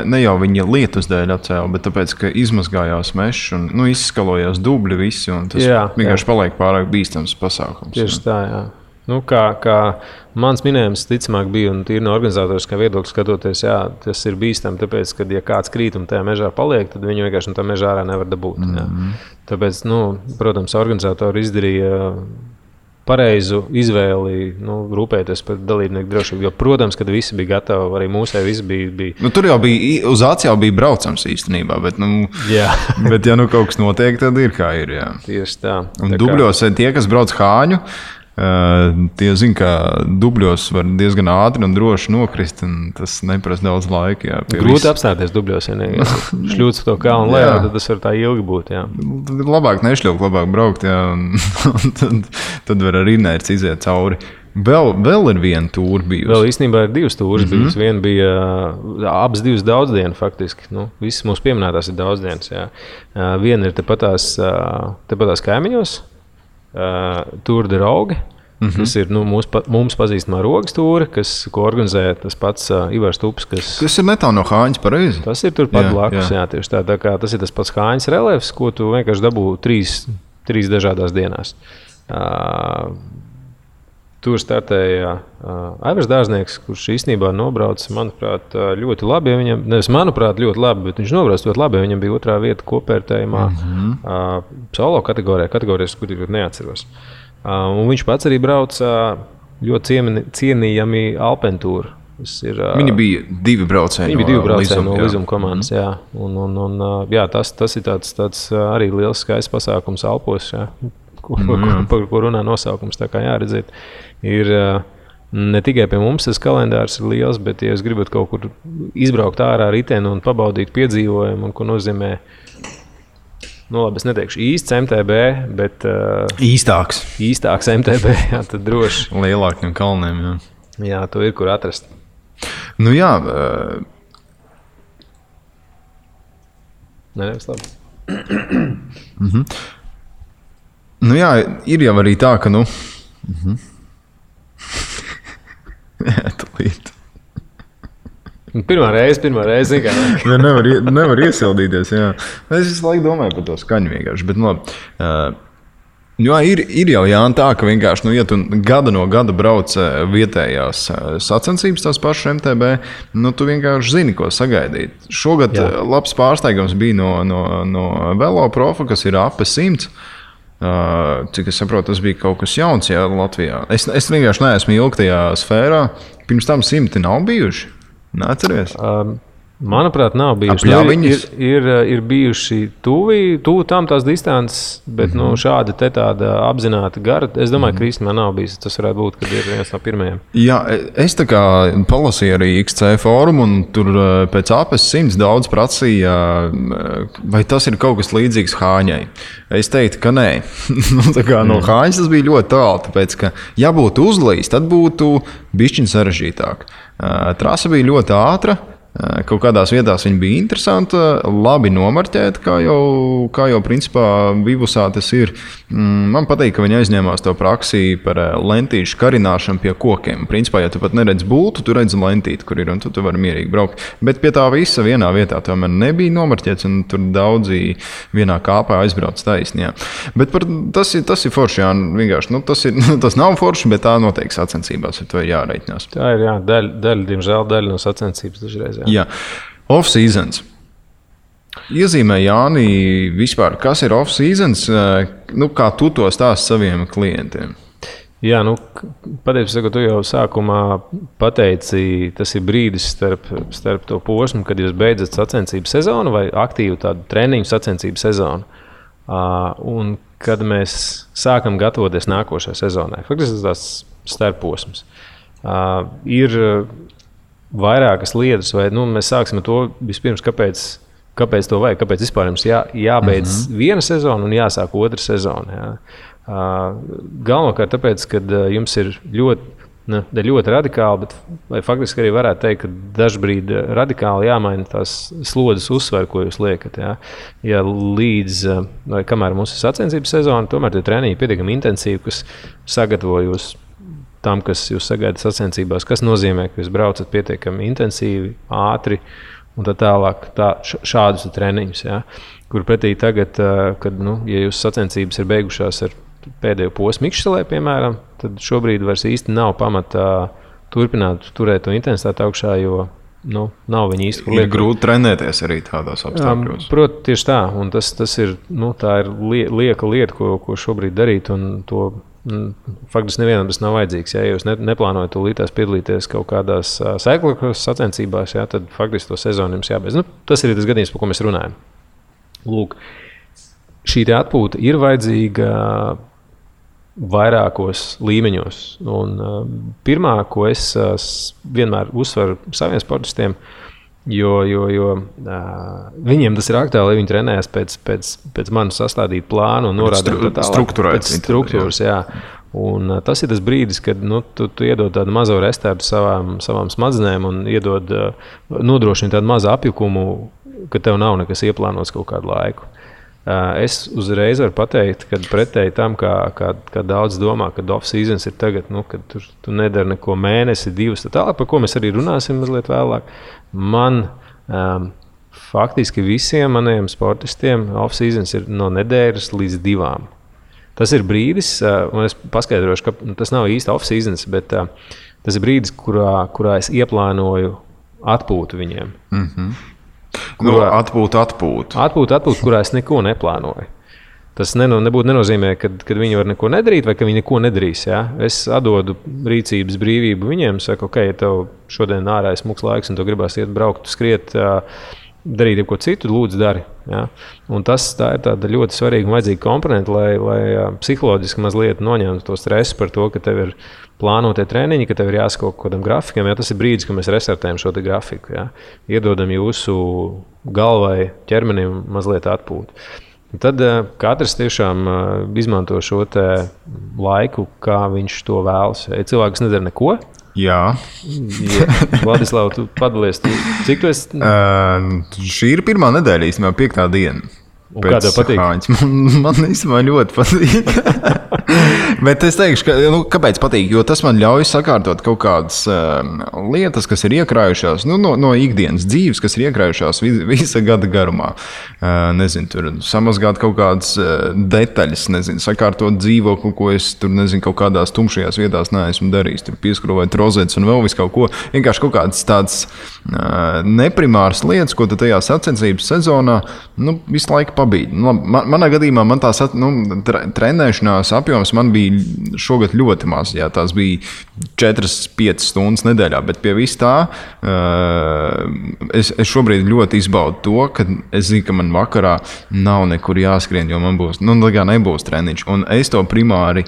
ne jau viņa lietus dēļ atcēla, bet tāpēc, ka izmazgājās mežs un izskalojās dubļi visi, un tas vienkārši paliek pārāk bīstams pasākums. Tieši tā, jā. Kā mans minējums, ticamāk, bija, un tīri no organizatoriskā viedokļa skatoties, tas ir bīstami, tāpēc, ka, ja kāds krīt un tajā mežā paliek, tad viņu vienkārši no tā mežā ārā nevar dabūt. Tāpēc, protams, organizatori izdarīja pareizu izvēli, rūpēties par dalībnieku drošību. Jo, protams, kad visi bija gatavi, arī mūsē visi bija... Tur jau bija, uz Ācijā bija braucams īstenībā, bet, bet ja kaut kas notiek, tad ir kā ir. Jā. Tieši tā. Un dubļos tie, kas brauc Hāņu, tie zina, ka dubļos var diezgan ātri un droši nokrist, un tas neprasa daudz laika. Jā, grūti apstāties dubļos, ja šļūts to kalnu lejā, tad tas var tā ilgi būt. Jā. Tad labāk nešļūt, labāk braukt, jā, un tad var ar inerci iziet cauri. Vēl ir viena tūra bijusi. Vēl īstenībā ir divas tūras bijusi. Viena bija abas divas daudzdienas faktiski. Visas mūsu pieminētās ir daudzdienas. Jā. Viena ir tepatās kaimiņos. Tour de Rogue, kas ir mums pazīstamā rogas tūra, ko organizē tas pats Ivars Tups. Tas ir netālu no Hāņas, pareizi? Tas ir turpat blakus, jā, tieši tā kā tas ir tas pats Hāņas reliefs, ko tu vienkārši dabū trīs dažādās dienās. Tur startēja Aivars Dārznieks, kurš īstenībā nobrauc, manuprāt, ļoti labi. Nevis manuprāt, ļoti labi, bet viņš nobrauc ļoti labi. Viņam bija otrā vieta kopvērtējumā solo kategorijas, kur ļoti neatceros. Un viņš pats arī brauca ļoti cienījami Alpentūru. Viņi bija divi braucēji no Lizuma komandas. Jā. Jā, tas ir tāds arī liels skaists pasākums Alpos, jā, par ko runā nosaukums. Tā kā jāredzēt. Ir ne tikai pie mums tas kalendārs ir liels, bet, ja jūs gribat kaut kur izbraukt ārā riteni un pabaudīt piedzīvojumu, un ko nozīmē, labi, es neteikšu īsts MTB, bet īstāks MTB, jā, tad droši. Lielākiem kalniem, jā. Jā, to ir, kur atrast. Jā. Nevis labi. Jā, ir jau arī tā, ka, Jā, tūlīt. Pirmā reize, kā. nevar iesildīties, jā. Es visu laiku domāju par to skaņu vienkārši, bet, ir jau tā, ka vienkārši, ja tu gada no gada brauc vietējās sacensības tās pašas MTB, tu vienkārši zini, ko sagaidīt. Šogad labs pārsteigums bija no Velo Profa, kas ir AP 100. Cik es saprotu, tas bija kaut kas jauns Latvijā. Es vienkārši neesmu ilgi tajā sfērā. Pirms tam 100 nav bijuši. Neatceries? Manuprāt, nav bijuši. Ir bijuši tuvu tam tās distances, bet šāda tāda apzināta gara. Es domāju, ka īstenībā nav bijis. Tas varētu būt, kad ir viens no pirmajiem. Jā, es tā kā palasīju arī XC fórumu, un tur pēc APS 100 daudz prasīja, vai tas ir kaut kas līdzīgs Hāņai. Es teiktu, ka nē. No Hāņas tas bija ļoti tālu, tāpēc, ka ja būtu uzlīs, tad būtu bišķiņ sarežģītāk. Trasa bija ļoti ātra. Kaut kādās vietās viņa bija interesanta, labi nomarķēta, kā jau principā Vivusā tas ir. Man patīk, ka viņi aizņēmās to praksi par lentīšu karināšanu pie kokiem. Principā, ja tu pat neredz bultu, tu redzi lentīti, kur ir, un tu vari mierīgi braukt. Bet pie tā visa vienā vietā tomēr nebija nomarķēts, un tur daudzi vienā kāpā aizbrauc taisni. Jā. Bet tas ir forši, jā, vienkārši. Tas nav forši, bet tā noteikti sacensībās ar to ir jāreiķinās. Tā ir, jā, diemžēl daļa no sacensības dažreiz. Jā. Off-seasons. Iezīmē Jāni vispār, kas ir off-seasons, kā tu to stāsti saviem klientiem? Jā, patiesībā, tu jau sākumā pateici, tas ir brīdis starp to posmu, kad jūs beidzat sacensību sezonu vai aktīvu tādu treniņu sacensību sezonu. Un kad mēs sākam gatavoties nākošajai sezonai. Faktiski tas starposms. Ir vairākas lietas, vai mēs sāksim ar to vispirms, kāpēc to vajag, kāpēc vispār jums jābeidz viena sezona un jāsāk otra sezona. Jā. Galvenokārt tāpēc, ka jums ir ļoti radikāli, bet faktiski arī varētu teikt, ka dažbrīd radikāli jāmaina tās slodzes uzsver, ko jūs liekat. Jā. Ja līdz, vai kamēr mums ir sacensības sezona, tomēr tie treniņi pietiekami intensīvi, kas sagatavo jūs tam, kas jūs sagaidat sacensībās, kas nozīmē, ka jūs braucat pietiekami intensīvi, ātri un tā tālāk. Šādus treniņus, ja, kur pretī tagad, kad ja jūsu sacensības ir beigušās ar pēdējo posmu Ikšselē, piemēram, tad šobrīd vairs īsti nav pamata turpināt turēt to intensitāti augšā, jo nav viņa īsti. Ir grūti trenēties arī tādās apstākļos. Protams, tieši tā. Un tas ir, tā ir lieka lieta, ko šobrīd darīt, un to faktiski nevienam tas nav vajadzīgs. Ja jūs neplānojat tūlītās piedalīties kaut kādās cyclocross sacensībās, ja, tad faktiski to sezonu jums jābeidz. Tas ir tas gadījums, par ko mēs runājam. Lūk, šī atpūta ir vajadzīga vairākos līmeņos. Un pirmā, ko es vienmēr uzsveru saviem sportistiem, jo viņiem tas ir aktuāli, lai viņi trenējas pēc manas sastādīt plānu un norādīt pēc struktūras. Jā. Un tas ir tas brīdis, kad tu iedod tādu mazo restartu savām smadzenēm un nodrošini tādu mazu apjukumu, ka tev nav nekas ieplānots kaut kādu laiku. Es uzreiz varu pateikt, ka pretēji tam, kā daudz domā, ka off-seasons ir tagad, kad tu nedari neko mēnesi, 2, tālāk, par ko mēs arī runāsim mazliet vēlāk. Man faktiski visiem maniem sportistiem off-seasons ir no nedēļas līdz 2. Tas ir brīdis, un es paskaidrošu, ka tas nav īsti off-seasons, bet tas ir brīdis, kurā es ieplānoju atpūtu viņiem. Atpūtu, kurā es neko neplānoju. Tas nebūtu nenozīmē, ka viņi var neko nedarīt vai ka viņi neko nedarīs. Ja? Es atdodu rīcības brīvību viņiem, saku, ok, ja tev šodien ārā ir smuks laiks un tu gribās iet braukt, skriet, darīt ko citu, lūdzu dari. Ja? Un tā ir tāda ļoti svarīga un vajadzīga komponenta, lai psiholoģiski mazliet noņemtu to stresu par to, ka tev ir plānotie treniņi, ka tev ir jāsako kaut kādam grafikam. Ja? Tas ir brīdis, kad mēs restartējam šo te grafiku. Ja? Iedodam jūsu galvai, ķermenim mazliet atpūtu. Tad katrs tiešām izmanto šo te laiku, kā viņš to vēlas. Ja cilvēks nedara neko. Jā. Vladislav, tu padalies. Cik tu esi? Šī ir pirmā nedēļa, īstenībā 5. diena. Un kā tev patīk? Man īstenībā ļoti patīk. Bet es teikšu, kāpēc patīk? Jo tas man ļauj sakārtot kaut kādas lietas, kas ir iekrājušās no ikdienas dzīves, kas ir iekrājušās visa gada garumā. Nezinu, tur samazgāt kaut kādas detaļas, sakārtot dzīvokli, ko es tur, kaut kādās tumšajās vietās neesmu darījis. Tur pieskrūvēt rozetes un vēl visu kaut ko. Vienkārši kaut kādas tādas neprimāras lietas, ko tu tajā sacensības sezonā visu laiku pabīdi. Manā gadījumā man tās trenēšanās apjoms man bija šogad ļoti maz. Jā, tās bija 4-5 stundas nedēļā, bet pie vis tā es šobrīd ļoti izbaudu to, ka es zinu, ka man vakarā nav nekur jāskrien, jo man būs, nebūs treniņš. Un es to primāri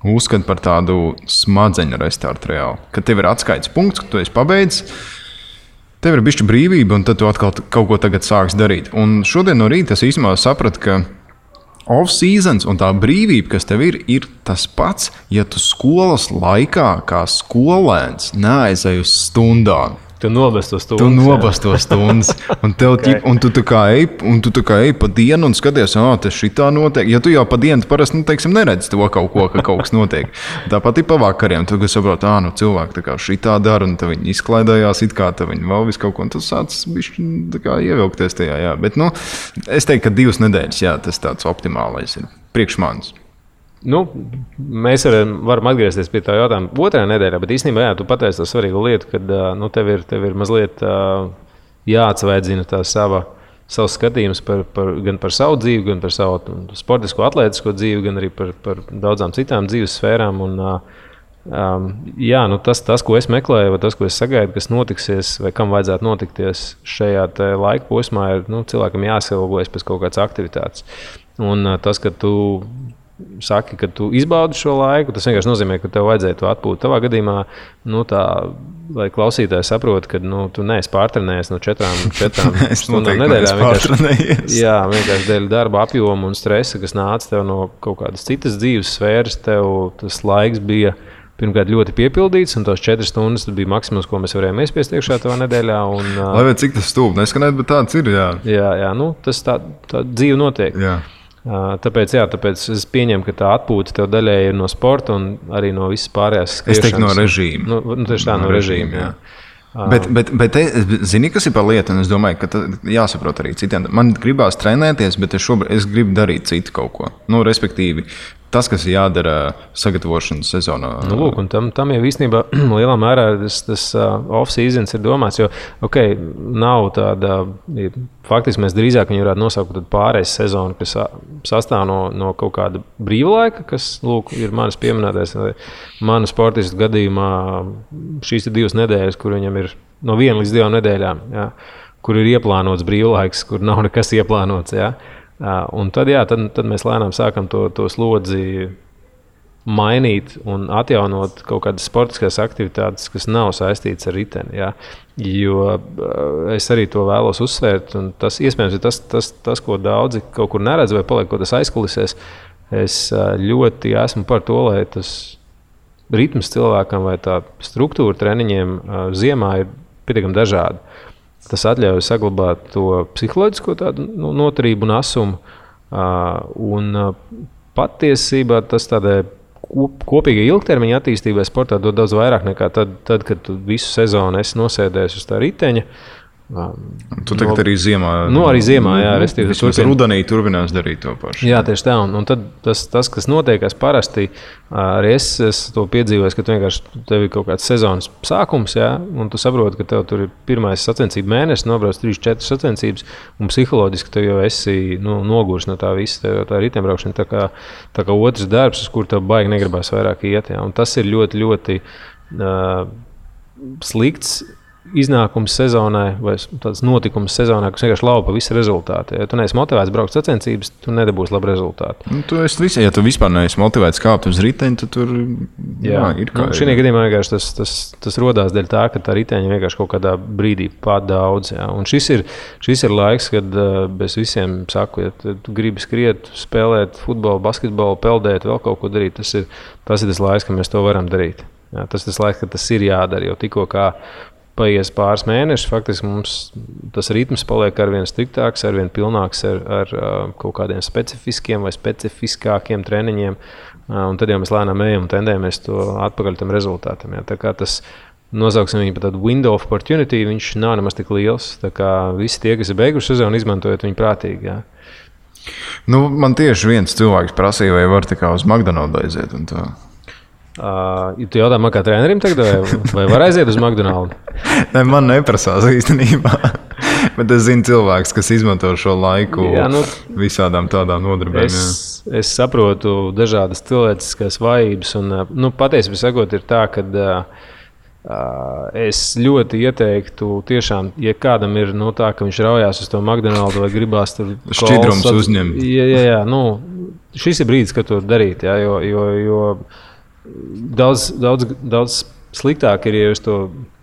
uzskatu par tādu smadzeņu restartu reāli. Kad tev ir atskaites punkts, ka tu esi pabeidzis, tev ir bišķi brīvība, un tad tu atkal kaut ko tagad sāks darīt. Un šodien no rīta es īstenībā sapratu, ka off-seasons un tā brīvība, kas tev ir tas pats, ja tu skolas laikā kā skolēns neaizej uz stundām. Tu nobast to stundas. Tu nobast to stundas. Un tu tā kā ej pa dienu un skaties, tas šitā notiek. Ja tu jau pa dienu parasti, neredzi to kaut ko, ka kaut kas notiek. Tāpat ir pa vakariem. Tu saproti, cilvēki tā kā šitā dara, un tad viņi izklaidējās, it kā viņi vēl visu kaut ko, un tas sācis bišķi tā kā ievilkties tajā, jā. Bet, es teiktu, ka 2 nedēļas, jā, tas tāds optimālais ir priekš manis. Mēs varam atgriezties pie tā jautājuma otrajā nedēļā, bet īstenībā jā, tu pateici to svarīgu lietu, kad tev ir mazliet jāatsvaidzina tā savs skatījums gan par savu dzīvi, gan par savu sportisko, atlētisko dzīvi, gan arī par daudzām citām dzīves sfērām. Tas, ko es meklēju, vai tas, ko es sagaidu, kas notiksies, vai kam vajadzētu notikties šajā laika posmā, ir cilvēkam jāsilgojas pēc kaut kādas aktivitātes. Un tas, ka tu saki, ka tu izbaudi šo laiku, tas vienkārši nozīmē, ka tev vajadzēja to atpūt. Tavā gadījumā, lai klausītāji saprot, ka tu neesi pārtrenējies no 4 stundām nedēļā. Vienkārši dēļ darba apjoma un stresa, kas nāca tev no kaut kādas citas dzīves sfēras, tev tas laiks bija pirmkārt ļoti piepildīts, un tās 4 stundas bija maksimums, ko mēs varējām iespiest iekšā tavā nedēļā. Lai vai cik tas stūp, neskanēt, bet tāds ir, jā. Jā, tas tā dzīve notiek. Jā. Tāpēc es pieņemu, ka tā atpūta tev daļēji ir no sporta un arī no visas pārējās skriešanas. Es teiktu no režīma. Tieši tā, no režīma, jā. Bet zini, kas ir par lietu, un es domāju, ka jāsaprot arī citiem. Man gribās trenēties, bet es gribu darīt citu kaut ko. Respektīvi, tas, kas ir jādara sagatavošanas sezonā. Un tam jau īstenībā lielā mērā tas off-seasons ir domāts, jo, nav tāda, faktiski mēs drīzāk viņu varētu nosaukt pārējais sezonu, kas sastāv no kaut kāda brīva laika, kas, ir manas pieminētais, manu sportistu gadījumā šīs ir 2 nedēļas, kur viņam ir no 1 līdz 2 nedēļām, jā, kur ir ieplānots brīvlaiks, kur nav nekas ieplānots, jā. Un tad mēs lēnām sākam to slodzi mainīt un atjaunot kaut kādas sportiskās aktivitātes, kas nav saistītas ar riteni. Ja? Jo es arī to vēlos uzsvērt, un tas iespējams ir tas, ko daudzi kaut kur neredz vai paliek kaut kas aizkulisēs. Es ļoti esmu par to, lai tas ritms cilvēkam vai tā struktūra treniņiem ziemā ir pietiekami dažāda. Tas atļauj saglabāt to psiholoģisko noturību un asumu. Un patiesībā tas tādai kopīgai ilgtermiņa attīstībai sportā dod daudz vairāk nekā tad, kad tu visu sezonu esi nosēdējis uz tā riteņa. Tu tagad arī ziemā. Arī ziemā, jā. Vismaz rudenī turpinās darīt to pašu. Jā, tieši tā. Un tad tas, kas notiekās parasti, arī es to piedzīvoju, ka tu vienkārši tev ir kaut kāds sezonas sākums, jā, un tu saproti, ka tev tur ir pirmais sacensību mēnesis, nobrauc 3-4 sacensības, un psiholoģiski tev jau esi nogurs no tā visa, tev tā riteņbraukšana tā kā otrs darbs, uz kur tev baigi negribās vairāk iet, jā. Un tas ir ļoti, ļoti slikts iznākums sezonai vai tāds notikums sezonā, kas vienkārši laupa visu rezultātu. Ja tu neesi motivēts braukt sacensības, tu nedabūsi labu rezultātu. Ja tu vispār neesi motivēts kāpt uz riteņa, tad tur ir kā. Šī gadījumā vienkārši tas rodās dēļ tā, ka tā riteņa vienkārši kaut kādā brīdī pat daudz. Ja. Un šis ir laiks, kad es visiem saku, ja tu gribi skriet, spēlēt futbolu, basketbolu, peldēt, vēl kaut ko darīt, tas ir tas laiks, ka mēs to varam darīt. Ja. Tas ir tas laiks, kad tas ir jādara, jo tikko kā paies pāris mēnešus, faktiski mums tas ritms paliek arvien striktāks, arvien pilnāks ar kaut kādiem specifiskiem vai specifiskākiem treniņiem. Un tad jau mēs lēnām ejam un tendējamies to atpakaļ tam rezultātam. Ja. Tā kā tas nosauksim viņu par tādu window of opportunity, viņš nav nemaz tik liels. Tā kā visi tie, kas ir beiguši sezonu, izmantojot viņu prātīgi. Ja. Man tieši viens cilvēks prasīja, vai var tā kā uz McDonald's aiziet un tā. Tu jautā man kā trenerim tagad, vai var aiziet uz McDonald's? Ne, man neprasās īstenībā. Bet es zinu cilvēks, kas izmanto šo laiku visādām tādām nodarbēm. Es saprotu dažādas cilvēciskās vājības. Un, patiesībā sakot, ir tā, ka es ļoti ieteiktu tiešām, ja kādam ir tā, ka viņš raujās uz to McDonald's vai gribās tur šķidrums uzņemt. Jā, šis ir brīdis, kad to darīt, jā, jo daudz sliktāk ir, ja jūs to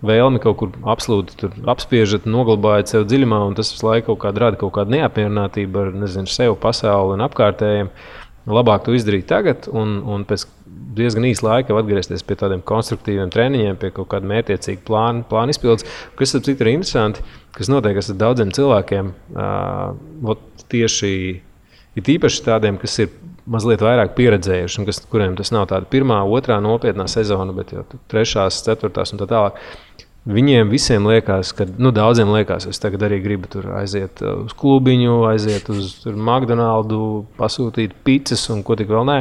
vēlmi kaut kur absolūti apspiežat, noglabājat sev dziļumā, un tas visu laiku rada kaut kādu neapmierinātību ar, sev, pasauli un apkārtējiem. Labāk to izdarīt tagad, un pēc diezgan īsa laika atgriezties pie tādiem konstruktīviem treniņiem, pie kaut kāda mērķiecīga plāna izpildes, kas ir interesanti, kas notiek ar daudziem cilvēkiem, tieši ir īpaši tādiem, kas ir mazliet vairāk pieredzējuši, un kuriem tas nav tāda pirmā, otrā nopietnā sezona, bet jau trešās, ceturtās un tā tālāk. Viņiem visiem liekas, ka daudziem liekas, es tagad arī gribu tur aiziet uz klubiņu, aiziet uz McDonald's, pasūtīt pizzas un ko tik vēl nē.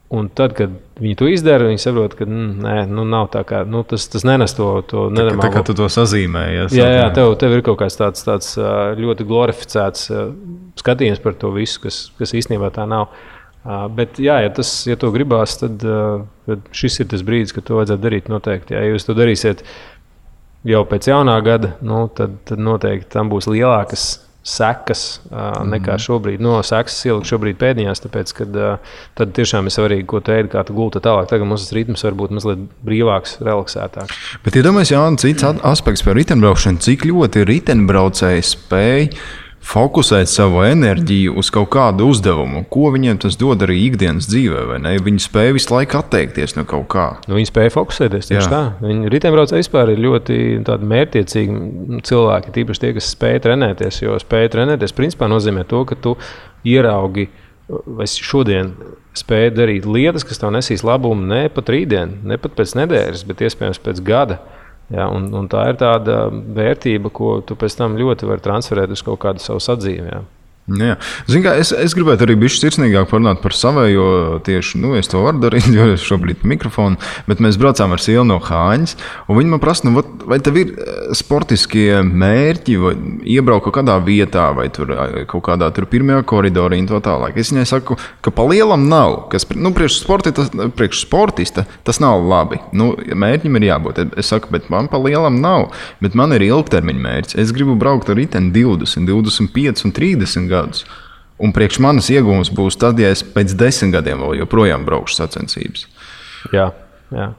Un tad, kad viņi to izdara, viņi saprot, ka nav tā kā, tas nenes to nenormālo. Tā kā tu to sazīmējies. Jā, tev ir kaut kāds tāds ļoti glorificēts skatījums par to visu, kas īstenībā tā nav. Bet, jā, ja to gribās, tad šis ir tas brīdis, kad to vajadzētu darīt noteikti. Ja jūs to darīsiet jau pēc jaunā gada, tad noteikti tam būs lielākas sekas nekā šobrīd. Sekas ielikt šobrīd pēdiņās, tāpēc, ka tad tiešām ir svarīgi, ko tu ēdi, kā tu gulti tālāk. Tagad mums tas ritms var būt mazliet brīvāks, relaksētāks. Bet iedomājies, Jāni, cits aspekts par riteņbraušanu, cik ļoti riteņbraucēji spēj fokusēt savu enerģiju uz kaut kādu uzdevumu. Ko viņiem tas dod arī ikdienas dzīvē, vai ne? Viņi spēj visu laiku atteikties no kaut kā. Viņi spēj fokusēties tieši tā. Riteņbraucēji vispār ir ļoti mērķiecīgi cilvēki, tīpaši tie, kas spēj trenēties. Jo spēj trenēties principā nozīmē to, ka tu ieraugi vai šodien spēj darīt lietas, kas tev nesīs labumu ne pat rītdien, ne pat pēc nedēļas, bet iespējams pēc gada. Ja, un tā ir tāda vērtība, ko tu pēc tam ļoti vari transferēt uz kaut kādu savu sadzīvi. Ja. Jā. Zini, kā, es gribētu arī bišķi sirsnīgāk parunāt par savējo tieši, es to varu darīt, jo es šobrīd mikrofonu, bet mēs braucām ar Silnu no Hāņas, un viņi man prasa, vai tev ir sportiskie mērķi, vai iebraukt kaut kādā vietā, vai tur kaut kādā tur pirmajā koridorī un to tālāk. Es viņai saku, ka pa lielam nav, kas, priekš sportista tas nav labi. Mērķim ir jābūt. Es saku, bet man pa lielam nav, bet man ir ilgtermiņa mērķis. Es gribu braukt ar riteni 20, 25 un 30 gadus. Un priekš manas iegūmas būs tad, ja es pēc 10 gadiem vēl joprojām braukšu sacensības. Jā.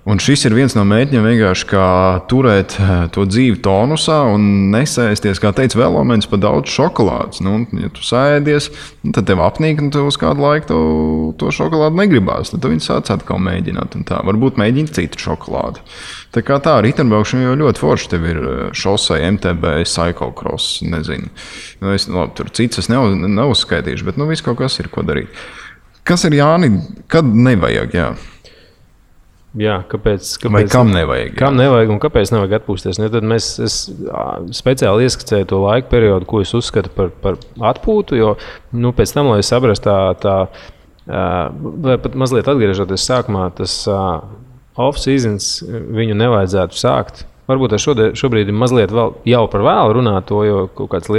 Un šis ir viens no mērķiem vienkārši kā turēt to dzīvi tonusā un nesēsties, kā teica Velomens, pa daudz šokolādes. Ja tu sēdies, tad tev apnīk, un tev uz kādu laiku to šokolādu negribās. Tad viņi sāc atkal mēģināt. Un tā. Varbūt mēģina citu šokolādi. Tā kā tā, riteņbraukšana jau ļoti forši. Tev ir šosei, MTB, cyclocross, nezinu. Tur cits es neuzskaitīšu, bet viss kaut kas ir, ko darīt. Kas ir, Jāni, kad nevajag, jā? Jā, kāpēc vai kam nevajag? Kam nevajag un kāpēc nevajag atpūsties? Tad es speciāli ieskicēju to laika periodu, ko es uzskatu par atpūtu, jo pēc tam, lai es saprastu vai pat mazliet atgriežoties sākumā, tas off-seasons viņu nevajadzētu sākt. Varbūt šobrīd ir mazliet jau par vēlu runāt to, jo kaut kādas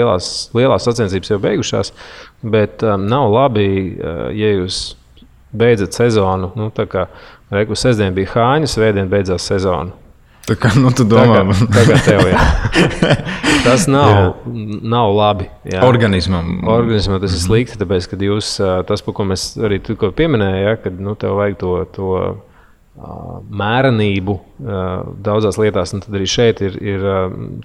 lielās sacensības jau beigušās, bet nav labi, ja jūs beidzat sezonu, tā kā reikus sestdien bija Hāņa, svētdien beidzās sezona. Tā kā, tu domā. Tagad tev, jā. Tas nav labi. Jā. Organismam tas ir slikti, tāpēc, kad jūs, tas, par ko mēs arī tikko pieminējām, ja, kad tev vajag to mērenību daudzās lietās, un tad arī šeit ir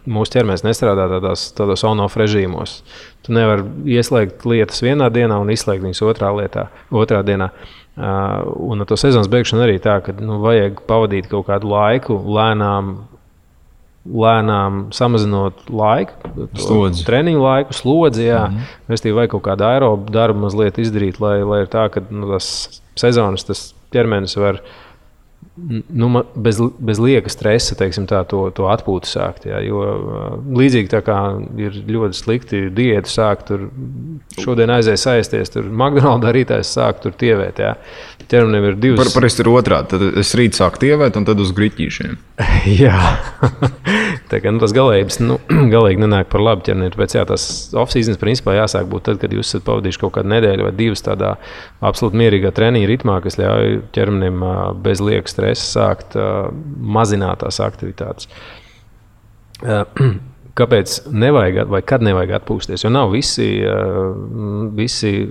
mūsu ķermenis nestrādā tādos on-off režīmos. Tu nevari ieslēgt lietas vienā dienā un izslēgt viņas otrā dienā. Un ar to sezonas beigšanu arī tā, ka vajag pavadīt kaut kādu laiku, lēnām samazinot laiku, treniņu laiku, slodzi, restīvi vajag kaut kādu aerobu darbu mazliet izdarīt, lai ir tā, ka tas sezonas tas ķermenis var bez lieka stresa, teiksim tā, to atpūtu sākt. Jā, jo līdzīgi tā kā ir ļoti slikti diētu sākt, tur šodien aizies aizties, tur McDonald's rītājs sāk tur tievēt. Jā. Ķermenim ir divas. Parasti ir otrādi, tad es rīt sāku tievēt un tad uz griķīšiem. Jā, tā kā tas galīgi nenāk par labu ķermenim. Tāpēc jā, tas off-seasons principā jāsāk būt tad, kad jūs esat pavadījuši kaut kādu nedēļu vai divas tādā absolūti mierīgā treniņa ritmā, kas ļauj ķermenim bez lieka stresa sākt mazināt tās aktivitātes. Kāpēc nevajag vai kad nevajag atpūsties? Jo nav visi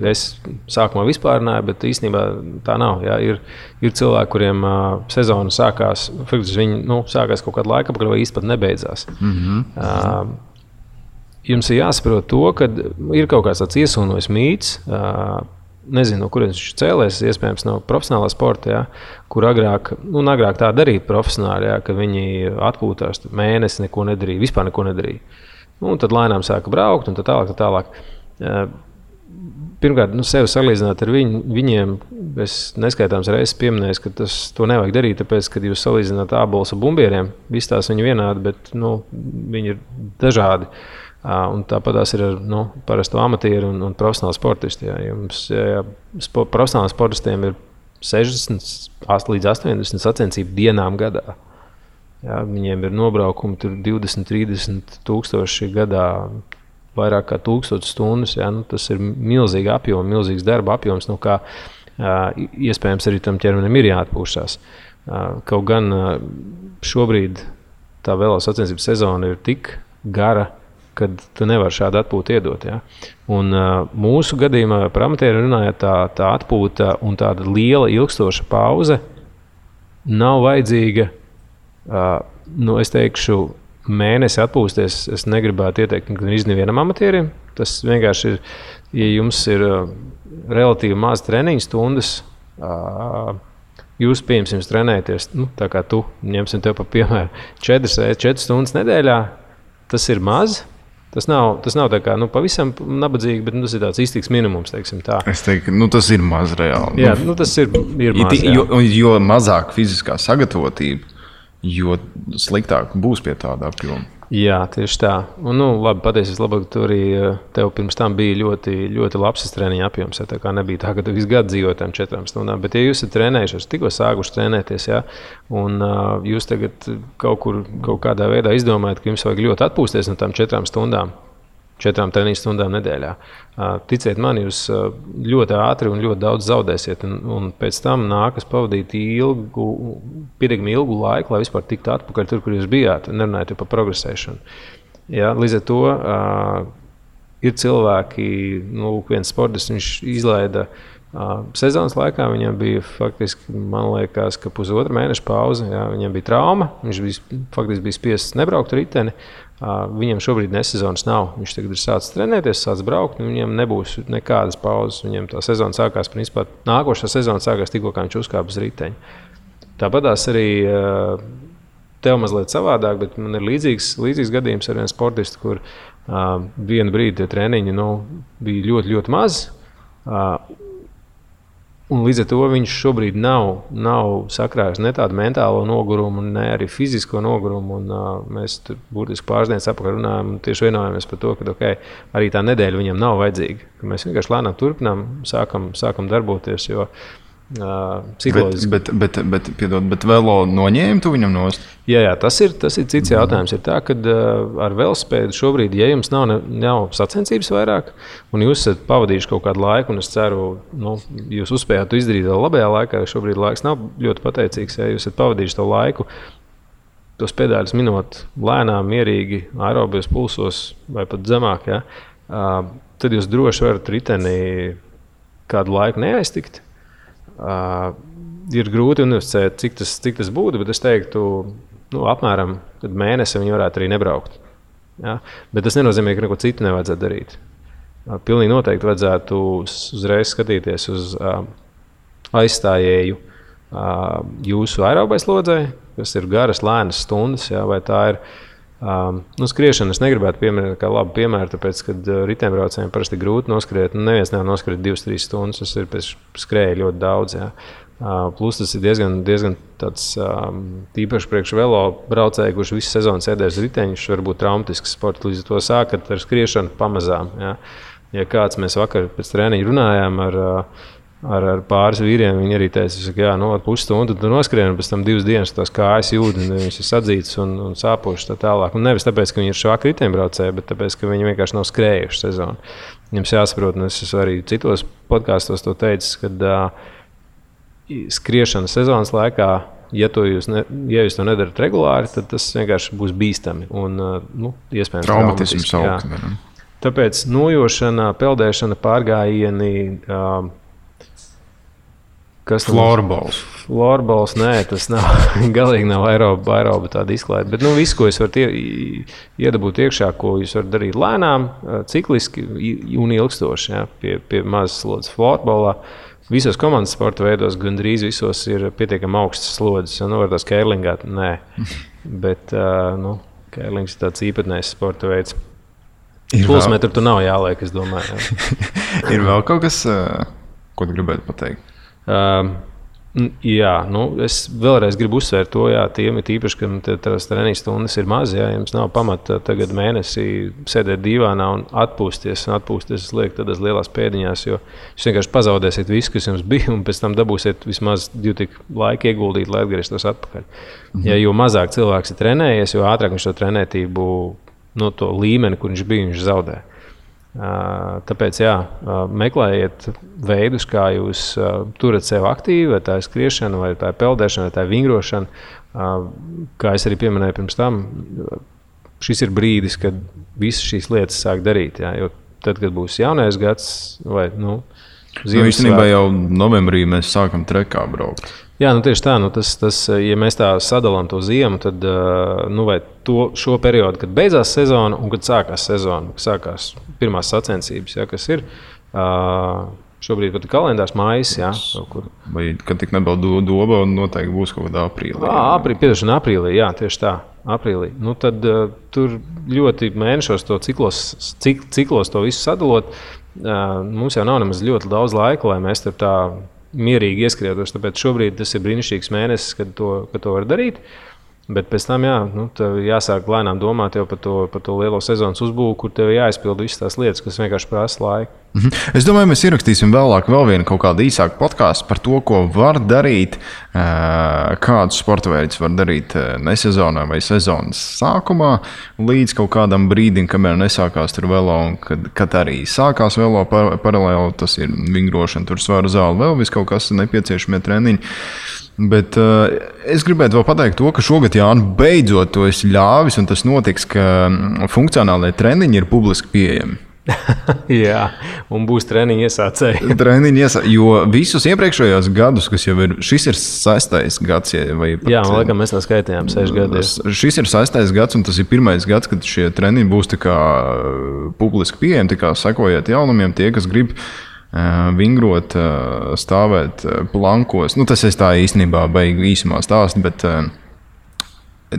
es sākumā vispārināju, bet īstenībā tā nav. Jā. Ir cilvēki, kuriem sezona sākās, viņi sākās kaut kādu laiku, vai īsti pat nebeidzās. Jums ir jāsaprot to, ka ir kaut kāds tāds iesūnojis mīts, nezinu, no kurienes viņš cēlēs, iespējams no profesionālā sporta, jā, kur agrāk tā darīja profesionāli, jā, kad viņi atpūtās mēnesi, neko nedarīja, vispār neko nedarīja. Un tad lēnām sāka braukt un tā tālāk. Pirmkārt, sevi salīdzināt ar viņiem, es neskaitāms reizes pieminēju, ka to nevajag darīt, tāpēc, kad jūs salīdzināt ābolus ar bumbieriem, visi tās viņi vienādi, bet viņi ir dažādi. Un tāpatās ir ar parasto amatieru un profesionālu sportistu. Profesionāliem sportistiem ir 60 līdz 80 sacensību dienām gadā. Jā, viņiem ir nobraukumi 20-30 tūkstoši gadā, vairāk kā 1000 stundas. Jā, tas ir milzīgi apjoms, milzīgs darba apjoms, kā iespējams arī tam ķermenim ir jāatpūšās. Kaut gan šobrīd tā velo sacensību sezona ir tik gara, kad tu nevari šādu atpūtu iedot. Ja? Un mūsu gadījumā par amatieru runājot, tā atpūta un tāda liela ilgstoša pauze nav vajadzīga. Es teikšu, mēnesi atpūsties es negribētu ieteikt nevienam amatierim. Tas vienkārši ir, ja jums ir relatīvi maz treniņu stundas, jūs pieņemsim trenēties, tā kā tu, ņemsim tev pa piemēru, 4 stundas nedēļā, tas ir maz. Tas nav tā kā pavisam nabadzīgi, bet tas ir tāds iztiks minimums, teiksim tā. Es teiktu, tas ir maz reāli. Jā, tas ir maz. Jo mazāk fiziskā sagatavotība, jo sliktāk būs pie tāda apjoma. Jā, tieši tā. Un, labi, pateicies labāk, tu arī tev pirms tam bija ļoti, ļoti labs treniņa apjoms. Tā kā nebija tā, ka tu visu gadu dzīvoji tam 4 stundām. Bet, ja jūs esat trenējušies, tikko sākuši trenēties, jā, un jūs tagad kaut kādā veidā izdomājat, ka jums vajag ļoti atpūsties no tām 4 stundām, 4 treniņu stundām nedēļā. Ticiet man, jūs ļoti ātri un ļoti daudz zaudēsiet, un pēc tam nākas pavadīt pietiekami ilgu laiku, lai vispār tiktu atpakaļ tur, kur jūs bijāt, nerunājot par progresēšanu. Ja, līdz ar to ir cilvēki, viens sportists, viņš izlaida sezonas laikā, viņam bija faktiski, man liekas, ka 1,5 mēneša pauze, ja, viņam bija trauma, viņš faktiski bija spiests nebraukt riteni. Viņam šobrīd nesezonas nav. Viņš tagad ir sācis trenēties, sācis braukt, un viņam nebūs nekādas pauzes. Viņam tā sezona sākās, principā, nākošā sezona sākās tikko, kā viņš uzkāpa uz riteņa. Tāpatās arī tev mazliet savādāk, bet man ir līdzīgs gadījums ar vienu sportistu, kur vienu brīdi tie treniņi bija ļoti, ļoti maz. Un līdz ar to viņš šobrīd nav sakrājis ne tādu mentālo nogurumu, ne arī fizisko nogurumu. Mēs tur būtiski pāris dienas atpakaļ runājam un tieši vienojamies par to, ka arī tā nedēļa viņam nav vajadzīga. Ka mēs vienkārši lēnām turpinām, sākam darboties, jo psiholoģiski. Bet velo noņēma tu viņam nost? Jā, tas ir cits jautājums. Ir tā, ka ar velospēdu šobrīd, ja jums nav sacensības vairāk, un jūs esat pavadījuši kaut kādu laiku, un es ceru, jūs uzspējāt to izdarīt vēl labajā laikā, jo šobrīd laiks nav ļoti pateicīgs, ja jūs esat pavadījuši to laiku, tos pedāļus minot lēnām, mierīgi, aerobijos pulsos vai pat zemāk, ja, tad jūs droši varat riteni kādu laiku neaiztikt. Ir grūti universificēt, cik tas būtu, bet es teiktu, apmēram mēnesi viņi varētu arī nebraukt. Ja? Bet tas nenozīmē, ka neko citu nevajadzētu darīt. Pilnīgi noteikti vajadzētu uzreiz skatīties uz aizstājēju jūsu aerobais lodzei, kas ir garas, lēnas stundas, ja? Vai tā ir skriešana. Es negribētu pieminēt kā labu piemēru, tāpēc, kad riteņbraucējiem parasti grūti noskriet. Neviens nevar noskriet 2-3 stundas, tas ir pēc skrēja ļoti daudz. Jā. Plus tas ir diezgan tāds tīpaši priekš velo braucēju, kurš visu sezonu sēdēs riteņus, varbūt traumatisks sports. Līdz ar to sākat ar skriešanu pamazām. Ja kāds mēs vakar pēc treniņa runājām ar pāris vīriem, viņi arī teica, ka pusstundu tu noskrien, un pēc tam 2 dienas tās kājas jūt, un viņš ir sadzīts un sāpošs tā tālāk. Un nevis tāpēc, ka viņi ir švaki riteņbraucēji, bet tāpēc, ka viņi vienkārši nav skrējuši sezonu. Jums jāsaprot, un es arī citos podkāstos to teicu, kad skriešana sezonas laikā, ja jūs to nedarat regulāri, tad tas vienkārši būs bīstami un iespējams traumatisms augt. Tāpēc nojošana, peldēšana, pārgājieni, Florbols. Florbols, nē, tas nav, galīgi nav aeroba tāda izklaide. Bet viss, ko jūs varat iedabūt iekšā, ko jūs varat darīt lēnām, cikliski un ilgstoši, pie mazas slodzes florbolā. Visos komandas sporta veidos gandrīz visos ir pietiekami augstas slodzes. Var tās kērlingāt? Nē. Bet kērlings ir tāds īpatnējs sporta veids. Pulsmetru tu nav jāliek, es domāju. Ir vēl kaut kas, ko tu gribētu pateikt? Es vēlreiz gribu uzsvērt to, tiem ir īpaši, ka tās treniņu stundas ir maz, jums nav pamata tagad mēnesī sēdēt dīvānā un atpūsties liek tādās lielās pēdiņās, jo jūs vienkārši pazaudēsiet visu, kas jums bija, un pēc tam dabūsiet vismaz 2 tik laika ieguldīt, lai atgrieztos atpakaļ. Jo mazāk cilvēks ir trenējies, jo ātrāk viņš to trenētību, to līmeni, kur viņš bija, viņš zaudē. Tāpēc meklējiet veidus, kā jūs turat sevi aktīvi, vai tā ir skriešana, vai tā ir peldēšana, vai tā ir vingrošana. Kā es arī pieminēju pirms tam, šis ir brīdis, kad visas šīs lietas sāk darīt. Jo tad, kad būs jaunais gads vai īstenībā jau novembrī mēs sākam trekā braukt. Jā, tieši tā. Tas, ja mēs tā sadalām to ziemu, tad vai šo periodu, kad beidzās sezona un kad sākās sezona, sākās pirmās sacensības, kas ir šobrīd pat kalendārs mājas. Vai kad tik nebija doba, noteikti būs kaut kādā aprīlī. Aprīlī, jā, tieši tā. Aprīlī. Tad tur ļoti mēnešos to ciklos to visu sadalot. Mums jau nav nemaz ļoti daudz laika, lai mēs tur tā mierīgi ieskrietos, tāpēc šobrīd tas ir brīnišķīgs mēnesis, kad to var darīt. Bet pēc tam jāsāk lēnām domāt jau par to lielo sezonas uzbūvu, kur tev jāizpild visas tās lietas, kas vienkārši prasa laiku. Es domāju, mēs ierakstīsim vēlāk vēl vienu kaut kādu īsāku podkāstu par to, ko var darīt, kādus sporta veidus var darīt nesezonā vai sezonas sākumā, līdz kaut kādam brīdim, kamēr nesākās tur velo, un kad arī sākās velo paralēli, tas ir vingrošana, tur svaru zāle, vēl viss kaut kas nepieciešamie treniņi. Bet es gribētu vēl pateikt to, ka šogad, Jāni, beidzot to esi ļāvis, un tas notiks, ka funkcionālie treniņi ir publiski pieejami. Jā, un būs treniņi iesācēji. Jo visus iepriekšējos gadus, kas jau ir, šis ir 6. gads. Man liekas, mēs tā skaitījām 6 gadus. Šis ir 6. gads, un tas ir 1. gads, kad šie treniņi būs tā kā publiski pieejami, tā kā sekojiet jaunumiem tie, kas grib vingrot, stāvēt plankos. Tas es tā īstenībā beigšu īsumā stāstu, bet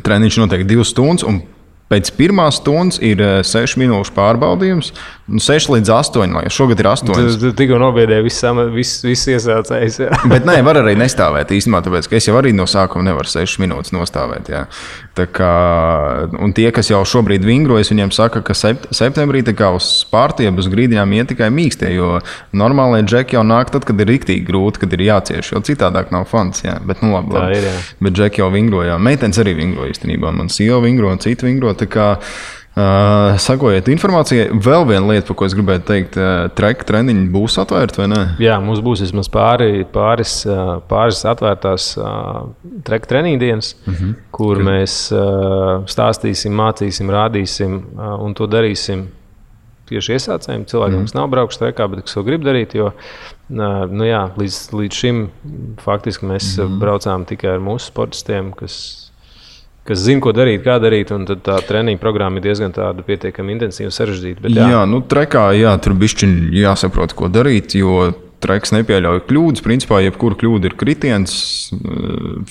treniņš notiek 2 stundas, un pēc 1 stundas ir 6 minūšu pārbaudījums, 6 līdz 8, lai šogad ir 8. Tu tikko nobiedēji viss iesācējs. Bet nē, var arī nestāvēt īstenībā, tāpēc, ka es jau arī no sākuma nevaru 6 minūtes nostāvēt. Jā. Tā kā, un tie, kas jau šobrīd vingrojas, viņiem saka, ka septembrī tā kā uz pārtiebu uz grīdiņām iet tikai mīkstie, jo normālie džeki jau nāk tad, kad ir riktīgi grūti, kad ir jācieš, jo citādāk nav fans. Jā. Bet labi. Tā ir, jā. Bet džeki jau vingroja. Meitenes arī vingroja īstenībā. Man sieva vingro un citi vingro. Tā kā sakojiet informācijai. Vēl viena lieta, par ko es gribētu teikt, treniņi būs atvērti vai ne? Jā, mums būs vismaz pāris atvērtās treniņu dienas, kur mēs stāstīsim, mācīsim, rādīsim un to darīsim tieši iesācējiem. Cilvēkiem, kas nav braukuši trekā, bet kas to grib darīt, jo līdz šim faktiski mēs braucām tikai ar mūsu sportistiem, kas zina, ko darīt, kā darīt, un tad tā treniņa programma ir diezgan tāda pietiekami intensīva un sarežģīta. Bet, trekā, tur bišķiņ jāsaprot, ko darīt, jo treks nepieļauj kļūdas. Principā, jebkura kļūda ir kritiens,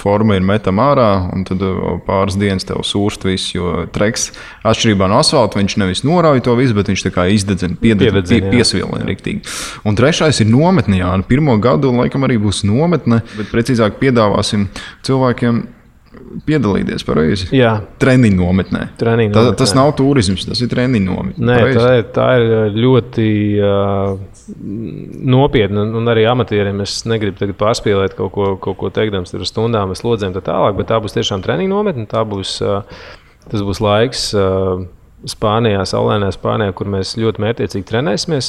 forma ir metama ārā, un tad pāris dienas tev sūrst viss, jo treks atšķirībā no asfalta, viņš nevis norauj to visu, bet viņš tā kā izdedzina, piesvilina riktīgi. Un trešais ir nometne, jā. Pirmo gadu laikam arī būs nometne, bet precīzāk piedāvāsim cilvēkiem piedalīties pareizi. Jā. Treniņu nometnē. Tas nav turisms, tas ir treniņu nometne. Nē, tā ir ļoti nopietna, un arī amatieriem es negribu tagad pārspīlēt kaut ko teikdams ar stundām, ar slodzēm tā tālāk, bet tā būs tiešām treniņu nometne, tas būs laiks Spānijā, saulainā Spānijā, kur mēs ļoti mērķiecīgi trenēsimies.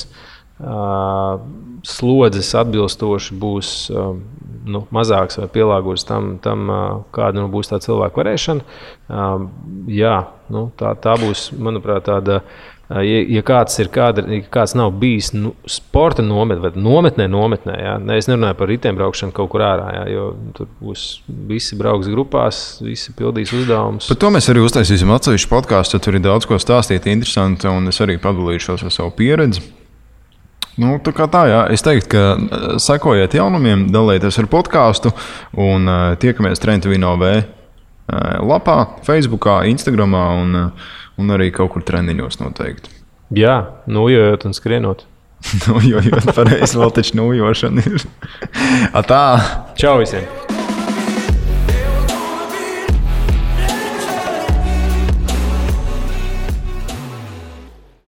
Slodzes atbilstoši būs mazāks vai pielāgots tam kāda būs tā cilvēku varēšana. Tā būs, manuprāt, tāda, ja kāds nav bijis sporta nometnē, jā. Es nerunāju par riteņbraukšanu kaut kur ārā, jā, jo tur būs visi brauks grupās, visi pildīs uzdevumus. Par to mēs arī uztaisīsim atsevišķu podkāstu, tur ir daudz ko stāstīt interesanti, un es arī padalīšos ar savu pieredzi. Tā kā tā, jā. Es teiktu, ka sekojiet jaunumiem, dalieties ar podkāstu un tiekamies Trentavino V lapā, Facebookā, Instagramā un arī kaut kur treniņos noteikti. Jā, nojojot un skrienot. Nojojot, pareizi, vēl taču nojošana ir. Atā! Čau visiem!